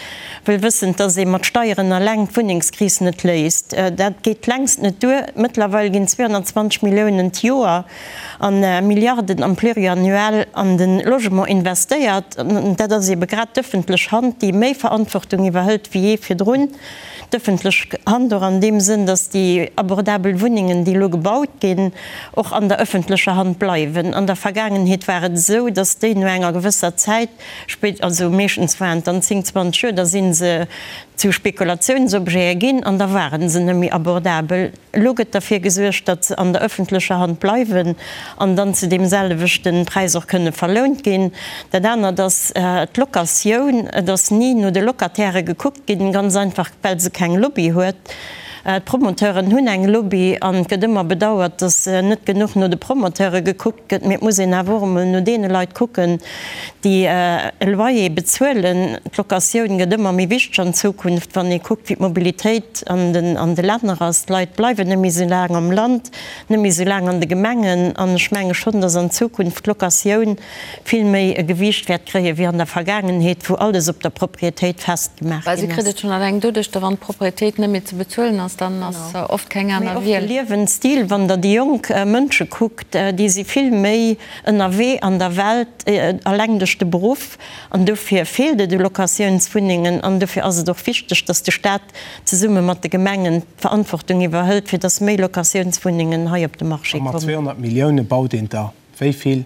wëll wëssend, datt ee mat Steieren eleng d'Wunnengskris net léist. Dat geet längst net duer. Mëttlerweil ginn 220 Milliounen d'Joer an Milliarden am Pluriannuel an de Logement investéiert. An dat ass eebe grad d'ëffentlech Hand, déi méi Verantwortung iwwerhëlt wéi jee virdrun. D'ëffentlech Hand och an deem Sënn, datt déi abordabel Wunnengen, déi elo gebaut ginn, och an der ëffentlecher Hand bleiwen. An der Vergaangenheet war et esou, datt déi no enger gewësser Zäit, spéit, also meeschtens waren et dann 10, 20 Joer, da si se zu Spekulationsobjete ginn an da ware se net méi abordabel. Elo gëtt derfir gesuergt, datt se an der ëffentlecher Hand bleiwen an dann zu deem selwechte Präis och kënne verlount ginn. Dat anert ass d'Locatioun. Et ass ni no de Locatairë gekuckt ginn, ganz einfach well se keng Lobby huet. D'Promoteuren hunn eng Lobby an et gëtt ëmmer bedauert, datt net genuch no de Promoteure gekuckt gëtt. Mee et muss een awer och emol no deene Leit kucken, déi e Loyer bezuelen. D'Locatioun gëtt ëmmer méi wichteg an Zukunft, wann ee kuckt, wéi d'Mobilitéit an de Länner ass. D'Leit bleiwen net méi esou laang am Land, net méi esou laang an de Gemengen. An ech menge schonn, datt an Zukunft d'Locatioun vill méi e Gewiicht wäert kréien, wéi an der Vergaangenheet, wou alles op der Propriétéit festgemaach Well si ginn kritt ass. et schonn alleng doduerch, da wann d'Propriétéit net méi ze bezuelen ass, dann ass oft keng Mee aner och de Wiel. Liewensstil, wann Der déi jonk Mënsche kuckt, déi si vill méi ënnerwee an der Welt, alleng duerch de Beruff. An dofir feelt et u Locatiounswunnengen. An dofir ass et och wichteg, dass de Stat zesumme mat de Gemengen d'Verantwortung iwwerhëlt, fir dass méi Locatiounswunnengen hei op de Marché A mat kommen. 200 Millioune baut een der wéi vill?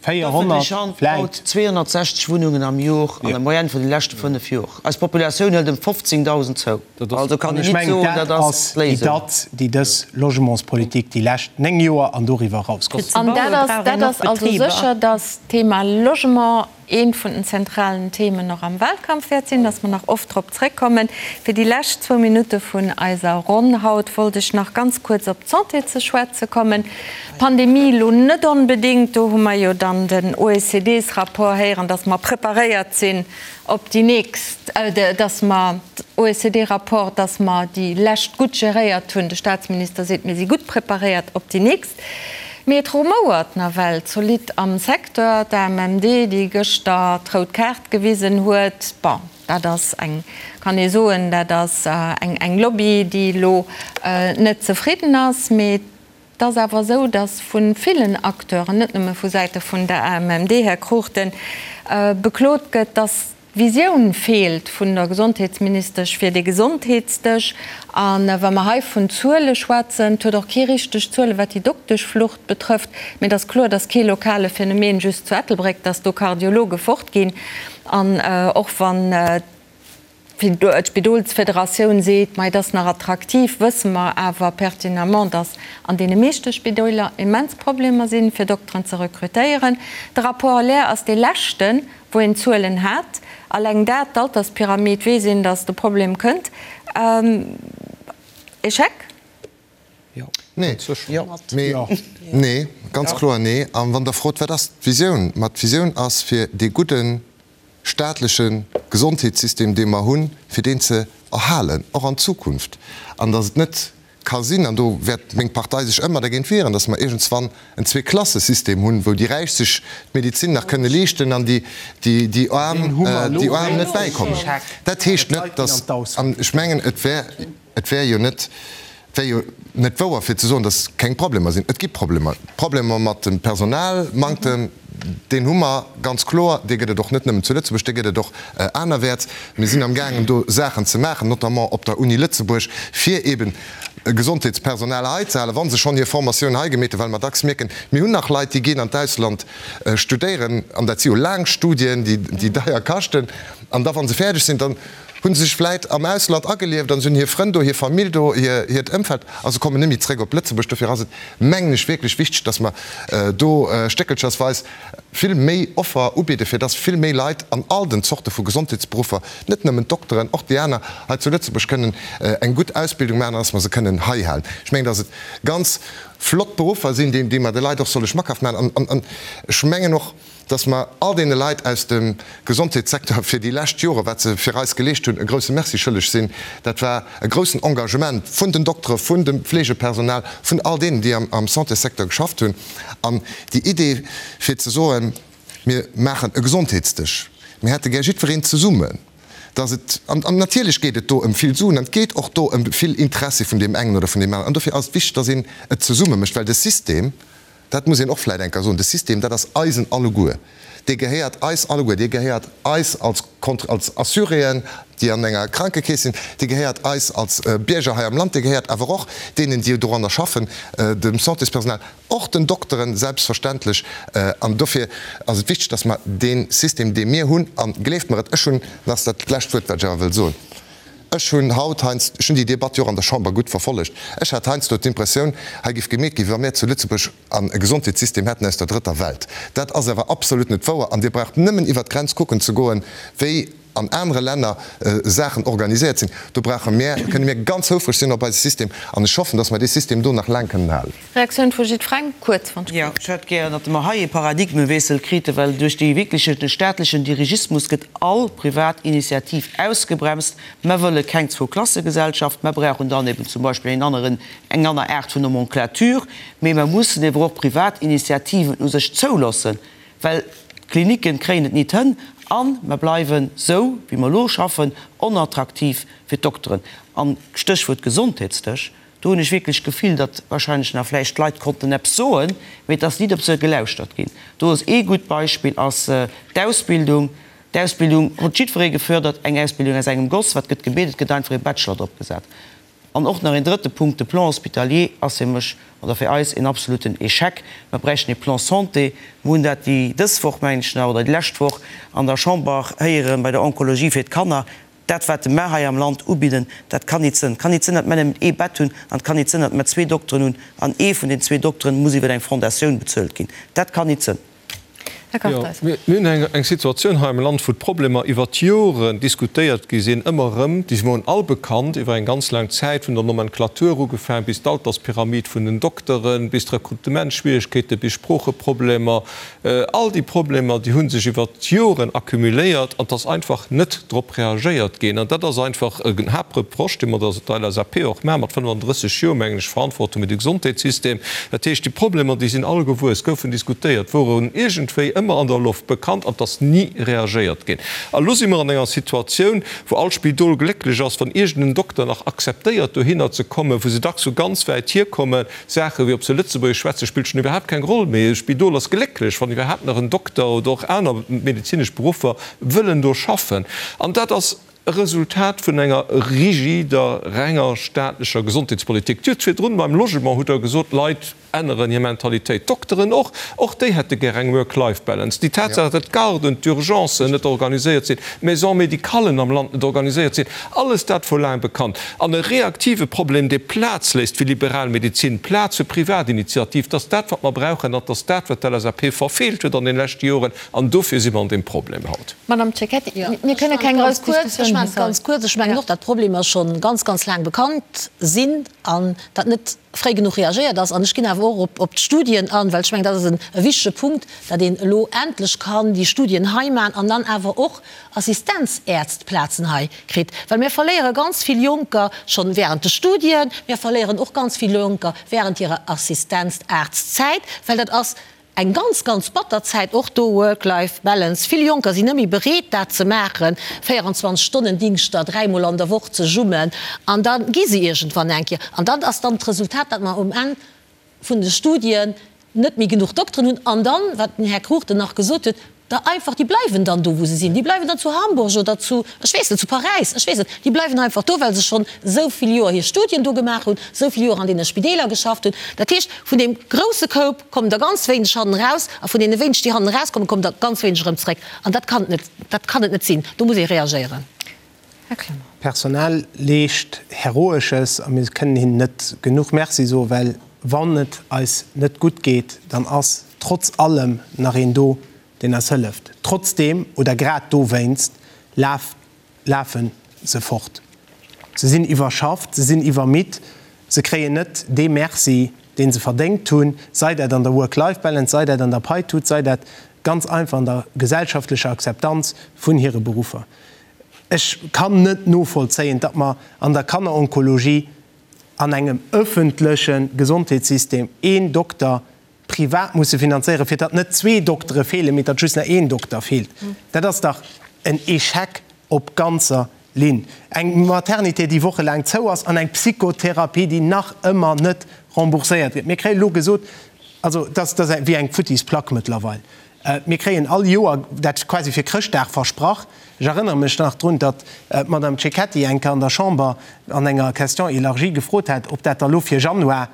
D'ëffentlech 400 Hand vläit. baut 260 Wunnungen am Jor an der Moyenne vun de leschte 5 Jor. Eis Populatioun hëlt ëm 15.000 zou. Also kann An een ech nit mengen, soen, dat dat ass ass déi d'Léisung. Datt, déi dës Logementspolitik déi lescht 9 Joer an doriwwer eraus Fir geholl ze An baue dat ass, brauch dat een och ass also Betriber. sécher, dass d'Thema Logement eent vun den zentralen Themen och am Wahlkampf wäert sinn, dass mer nach oft drop zréckkommen. Fir déi lescht zwou Minutte vun eiser Ronn haut wollt ech nach ganz kuerz op d'Santé ze schwätze kommen. D'Pandemie elo net onbedéngt, do hu mer jo dann den OECD-Rapport héieren, dass mer preparéiert sinn op déi nächst, dass mer, OECD-Rapport, dass mer déi lescht gutt geréiert hunn. De Statsminister seet, mir si gutt preparéiert op déi nächst. Mee et rumouert nawell zolidd am Secteur. D'AMMD, déi gëschter d'rout Kaart gewisen huet, bon, dat ass eng, kann ee soen, dat ass eng Lobby, déi elo net zefridden ass. Mee et ass awer esou, datt vu villen Acteuren, net nëmme vu Säite vun der AMMD, Här Cruchten, beklot gëtt, datt D'Visioun feelt vun der Gesondheetsministesch fir dee Gesondheetsdësch. A wa mer hei vun Zuele schwätzen, et huet och kee richteg Zuele wat déi Dokteschflucht betrëfft, mee et ass kloer, et ass kee lokale Phänomen just zu Ettelbréck, datt do Kardiologe fortginn. An och wann d'Spidolsfederatioun seet, ma et ass nach attraktiv, wësse mer awer pertinemment, datt an deene meeschte Spidoler immens Problemer sinn, fir Dokteren ze rekrutéieren. De Rapport Lair ass dee leschten, wou een Zuelen hat. Alleng dat, d'Alterspyramid, weess een, datt de Problem kënnt. Echec? Nee, mee, nee, ganz kloer nee. A wann Der frot, wat ass d'Visioun? Ma d'Visioun ass, fir dee gudde staatleche Gesondheetssystem, dee mer hunn, fir deen ze erhalen, och an Zukunft, an datt et net ka sinn, an do wäert meng Partei sech ëmmer dergéint wieren, datt mer iergendswann en Zweeklassesystem hunn, wou déi Räich sech d'Medezin nach kënne leeschten an déi, déi Aarm, déi Aarm net bäikommen. Dat heescht net, datt, an ech mengen, et wär, et wär jo net, et wär jo net wouer fir ze soen, datt keng Problemer sinn. Et gi Problemer, Problemer mat dem Personalmanktem, Deen hu mer ganz kloer. Dee gëtt et och net nëmmen zu Lëtzebuerg, dee gëtt et och anerwäerts. Mir sinn amgaangen do Saachen ze maachen, notamment op der Uni Lëtzebuerg, fir eeben Gesondheetspersonal hei ze halen, wa se schonn hir Formatioun hei gemeet hunn, well mer dacks mierken, mir hunn nach Leit, déi ginn an d'Ausland studéieren, an dat si jo laang Studien, déi deier kaschten, an da wa se fäerdeg sinn, dann hu se sech vläit am Ausland agelieft an se hunn hir Frënn do, hir Famill do, hiert Ëmfeld a se kommen net méi zréck op Lëtzebuerg. Dofir ass et, mengen ech, wierklech wichteg, dass mer do stéckelchersweis vill méi Offer ubidden, fir dass vill méi Leit an all den Zorte vu Gesondheetsberuffer, net nëmmen d'Dokteren, och déi aner, hei zu Lëtzebuerg kënnen eng gutt Ausbildung maachen an dass mer se kënnen hei halen. Ech mengen, dass et ganz flott Beruffer sinn, déi mer de Leit och solle schmackhaft maachen. An ech mengen och, dass mer all deene Leit aus dem Gesondheetssecteur fir déi lescht Jore, wat se fir eis geleescht hunn, e grouse Merci schëlleg sinn. Dat war e groussen Engagement vun den Doktere, vun dem Fleegepersonal, vun all deenen, déi am Santéssecteur geschafft hunn. An déi Idee fir ze soen, mir maachen e Gesondheetsdësch, mir hätte gär jiddwereen zesummen, dass et, an natierlech geet et do ëm vill Suen an et geet och do ëm vill Interessi vun deem engen oder vun deem aneren, an dofir ass et wichteg, dass een et zesumme mécht, well de System, Dat muss een och vläicht eng Kéier soen, de System, dat ass eisen alleguer, dee gehéiert eis alleguer, dee gehéiert eis als als Assuréen, déi an enger Krankekeess sinn, dee gehéiert eis als Bierger hei am Land, dee gehéiert awer och deenen, déi doranner schaffen, dem Santéspersonal, och den Dokteren selbstverständlech. An dofir ass et wichteg, dass mer dee System, dee mir hunn, a gleeft mer et, ech hunn, dat ass dat lescht Wuert, wat ech awer wëll soen, Ech hunn haut heiansdo, ech hunn déi Debatt jo och an der Chamber gutt verfollegt, ech hat heiansdo d'Impressioun, hei géif gemeet ginn, wéi wa mir zu Lëtzebuerg an e Gesondheetssystem hätten aus der drëtter Welt. Dat ass awer absolut net wouer an Dir braucht nëmmen iwwert d'Grenz kucken ze goen, wéi. an anere Länner Saachen organiséiert sinn. Do brauche mär, kënne mir ganz houfreg sinn op eise System an ech hoffen, dass mer dee System do nach laang kënnen halen. Reaktioun vu jiddferengem, kuerz wann ech Jo, ech hätt gären, datt mer hei ee Paradigmewiessel kriten, well duerch dee wierkleche staatlechen Dirigismus gëtt all privat Initiativ ausgebremst. Mer wëlle keng Zwouklassegesellschaft, mer brauchen dann eben zum Beispill een aneren, eng aner Aart vun Nomenclature, mee mer mussen ewer och privat Initiativen u sech zouloossen, well d'Klinicken kréien et nit hënn a mer bleiwen, sou wéi mer elo schaffen, onattraktiv fir d'Dokteren. An Stéchwuert Gesondheetsdësch, do hunn ech wierklech d'Gefill, datt wahrscheinlech nach vläicht d'Leit konnten eppes soen, mee et ass nit op se gelauschtert ginn. Do ass ee gutt Beispill ass d'Ausbildung. D'Ausbildung huet jiddweree gefördert, eng Ausbildung aus engem Goss. Wat gëtt gebiet? Et gëtt einfach ee Bachelor drop gesat. An och nach een drëtte Punkt, De Plan hospitalier ass fir mech oder fir eis een absoluten Échec. Mer bräichten ee Plan santé. Mer hunn dat déi dës Woch, mengen ech nach, oder déi lescht Woch an der Chamber héieren, bei der Onkologie fir d'Kanner. Dat, wat mer hei am Land ubidden, dat kann nit sënn. Et kann nit sënn, datt mer nëmmen ee Bett hunn an et kann nit sënn, datt mer zwee Dokteren hunn an ee vun den zwee Dokteren muss iwwer eng Fondatioun bezuelt ginn. Dat kann nit sënn. Här Kartheiser. Jo, mir hunn eng Situatioun hei am Land, wou d'Problemer iwwer d'Joren diskutéiert gi sinn, ëmmer erëm. Déi woren all bekannt iwwer eng ganz laang Zäit, vun der Nomenclature ugefaang bis d'Alterspyramid vun den Dokteren, bis d'Rekrutementsschwierigkeete, bis Sproocheproblemer. All déi Problemer, déi hu sech iwwer d'Joren accumuléiert an et ass einfach net drop reagéiert ginn. An dat ass einfach en Haaptreproche, dee mer der LSAP och maachen, mat 35 Joer, mengen ech, Verantwortung fir de Gesondheetssystem. Dat heescht, déi Problemer, déi sinn all gewuess, goufen diskutéiert, woren iergendwéi ëmmer an der Loft bekannt an et ass ni reagéiert ginn. A lo si mer an enger Situatioun, wou all Spidol glécklech ass, wann iergend en Dokter nach akzeptéiert, dohinner ze kommen, wou se dacks vu ganz wäit hierkommen. Saache wéi ob se Lëtzebuergesch schwätzen, spillt schonn iwwerhaapt keng Roll méi. E Spidol ass glécklech, wann iwwerhaapt nach en Dokter oder och aner medezinesch Beruffer wëllen do schaffen. An dat ass e Resultat vun enger rigider, renger staatlecher Gesondheetspolitik. Dir hutt virdrun beim Logement hutt Der gesot, d'Leit änneren hir Mentalitéit, d'Dokteren och. Och déi hätte gär eng Work-Life-Balance. Déi Tatsaach, datt d'Garden, d'Urgencen net organiséiert sinn, d'Maisons médicallen am Land net organiséiert sinn, alles dat wor laang bekannt. An e reaktive Problem, dee Plaz léisst fir liberal Medezin, Plaz fir Privatinitiativ, dat ass dat, wat mer brauchen an dat ass dat, wat d'LSAP verfeelt huet an den leschte Joren. An dofir si mer an deem Problem haut. Madame Cecchetti, mir kënne keng grouss Diskussioun hei. Ech maachen et ganz kuerz. Ech mengen och, datt d'Problemer scho ganz, ganz laang bekannt sinn an datt net fréi genuch reagéiert ass. An ech ginn awer och op d'Studien an, well ech mengen, dat ass e wichtege Punkt, datt een elo endlech kann déi Studien hei maachen an dann awer och Assistenzärztplazen hei kritt. Well mir verléiere ganz vill Jonker schonn während de Studien, mir verléieren och ganz vill Jonker während hirer Assistenzarztzäit, well dat ass Eng ganz, ganz batter Zäit och do, Work-Life Balance. Vill Jonker sinn net méi bereet dat ze maachen, 24 Stonnen Dingschter, dräimol an der Woch ze jummen an da gi se iergendwann eng Kéier. An dann ass dann d'Resultat, datt mer um Enn vun de Studien net méi genuch Dokteren hunn an dann, wat den Här Cruchten nach gesot huet, der einfach, déi bleiwen dann do wou se sinn, déi bleiwen dann zu Hamburg oder zu, ech weess net, zu Paräis, ech weess net, déi bleiwen einfach do, well se schonn esou vill Joer hir Studien do gemaach hunn, esou vill Joer an deene Spideeler geschafft hunn. Dat heescht, vun deem grousse Koup kommen der ganz wéineg hannen eraus a vun deene wéineg, déi hannen erauskommen, kommen der ganz wéineg erëm zréck. An dat kann et net, dat kann et net sinn. Do muss ee reagéieren. Här Clement. D'Personal leescht Heroesches a mir kënnen hinnen net genuch Merci soen, well wann et eis net gutt geet, dann ass trotz allem nach een do, deen eis hëlleft. Trotzdeem oder grad dowéinst lafe se fort. Se sinn iwwerschafft, se sinn iwwermidd, se kréien net dee Merci, dee se verdéngt hunn, sei dat an der Work-Life-Balance, sei dat an der Paitut, sei dat ganz einfach an der gesellschaftlecher Akzeptanz vun hire Beruffer. Ech kann net novollzéien, datt mer an der Kanneronkologie an engem öffentleche Gesondheetssystem een Dokter privat musse finanzéieren, fir datt net zwee Doktere feelen, mee datt just nach een Dokter feelt. Dat ass dach en Échec op ganzer Linn. Eng Maternité, déi wochelaang zou ass, an eng Psychotherapie, déi nach ëmmer net rembourséiert gëtt. Mir kréie lo gesot, also dat ass wéi eng futtis Plack mëttlerweil, mir kréien all Joer dat quasi fir Chrëschtdag versprach. Ech erënnere mech nach drun, datt d'Madame Cecchetti eng Kéier an der Chamber an enger Question élargie gefrot hat, ob dat da lo fir Januar.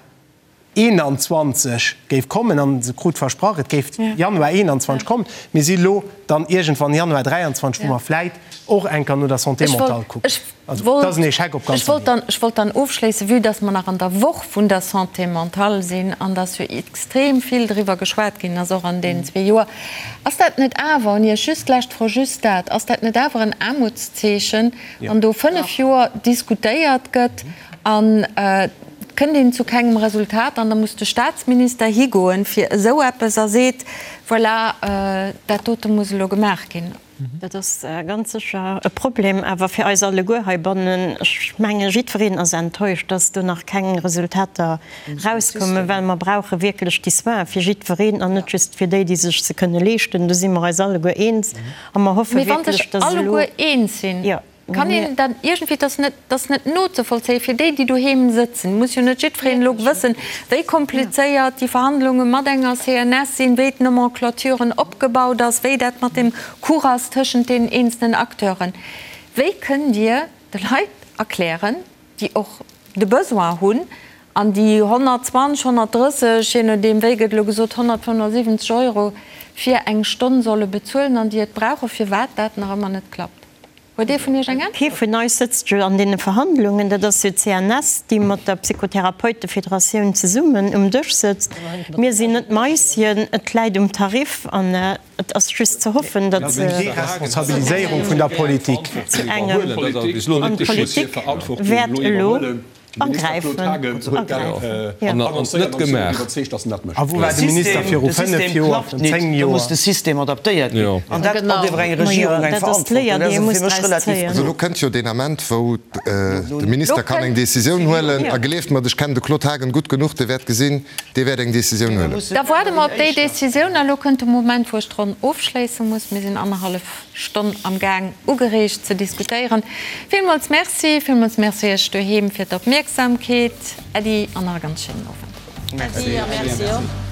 21 géif kommen, an se krut versprach, et géif Januar 21 kommen. Mir si lo dann iergendwann Januar 23, wou mer vläit och eng Kéier no der Santé mentale kucken. Also, et ass en Échec op ganzer Ligne. Ech wollt dann ofschléissen, vue dass mer nach an der Woch vun der Santé mentale sinn an dass jo extrem vill driwwer geschwat ginn ass, och an deenen zwee Joer, ass dat net awer, un Iech just d'lescht Fro, just dat, ass dat net awer en Aarmutszeechen, wann do fënnf Joer diskutéiert gëtt an et kënnt een zu kengem Resultat an da muss de Statsminister higoen fir esou eppes a seet, voilà, dat dote muss elo gemaach ginn. Dat ass ganz sécher e Problem, awer fir eis alleguer heibannen. Ech menge jiddwereen ass enttäuscht, dass do nach keng Resultater erauskommen, well mer brauche wierklech déi Soinen fir jiddwereen an net just fir déi, déi sech se kënne leeschten. Do si mer eis alleguer eens a mer hoffe Mee wa wierklech, sech dass elo. alleguer eens sinn, Kann een dat iergendwéi, dat ass net, dat ass net nozevollzéien fir déi, déi doheem sëtzen, muss jo net jiddwereen elo wëssen, wéi komplizéiert déi Verhandlunge mat enger CNS sinn, wéi d'Nomenclaturen opgebaut ass, wéi dat mat dem Cours ass tëschent deenen eenzelnen Acteuren. Wéi kënnt Dir de Leit erklären, déi och de Besoin hunn an déi 120, 130, je nodeem wéi gëtt elo gesot, 175 Euro fir eng Stonn solle bezuelen an déi et brauchen, firwat dat nach ëmmer net klappt? Huet ee vun Iech eng Äntwert? Kee vun eis sëtzt jo an deene Verhandlungen. Dat ass jo d'CNS, déi mat der Psychotherapeutefederatioun zesummen um Dësch sëtzt. Mir sinn net Maisien. Et läit um Tarif an et ass just ze hoffen, datt se. Deresponsabiliséierung vun der Politik. Zu engem. An d'Politik wäert elo. Agräifen. A wou war de Minister viru 5 Joer, virun 10 Joer? Da muss de System adaptéiert ginn. An dat ass iwwer eng Regierung eng Verantwortung. Dat ass fir mech relativ. Also elo kënnt jo deen Ament, wou de Minister kann eng Décisioun huelen. A gleeft mer, ech kennen de Claude Haagen gutt genuch, dee wäert gesinn, dee wäert eng Décisioun huelen. Da waarde mer op déi Décisioun. A elo kënnt de Moment, wou ech d'Ronn ofschléisse muss. Mir sinn annerhallef Stonn am Gaang ugereegt ze diskutéieren. Villmools Merci, villmools Merci Iech doheem fir d'Opmierksamkeet. Äddi an nach e ganz schéinen Owend. Äddi a Merci och.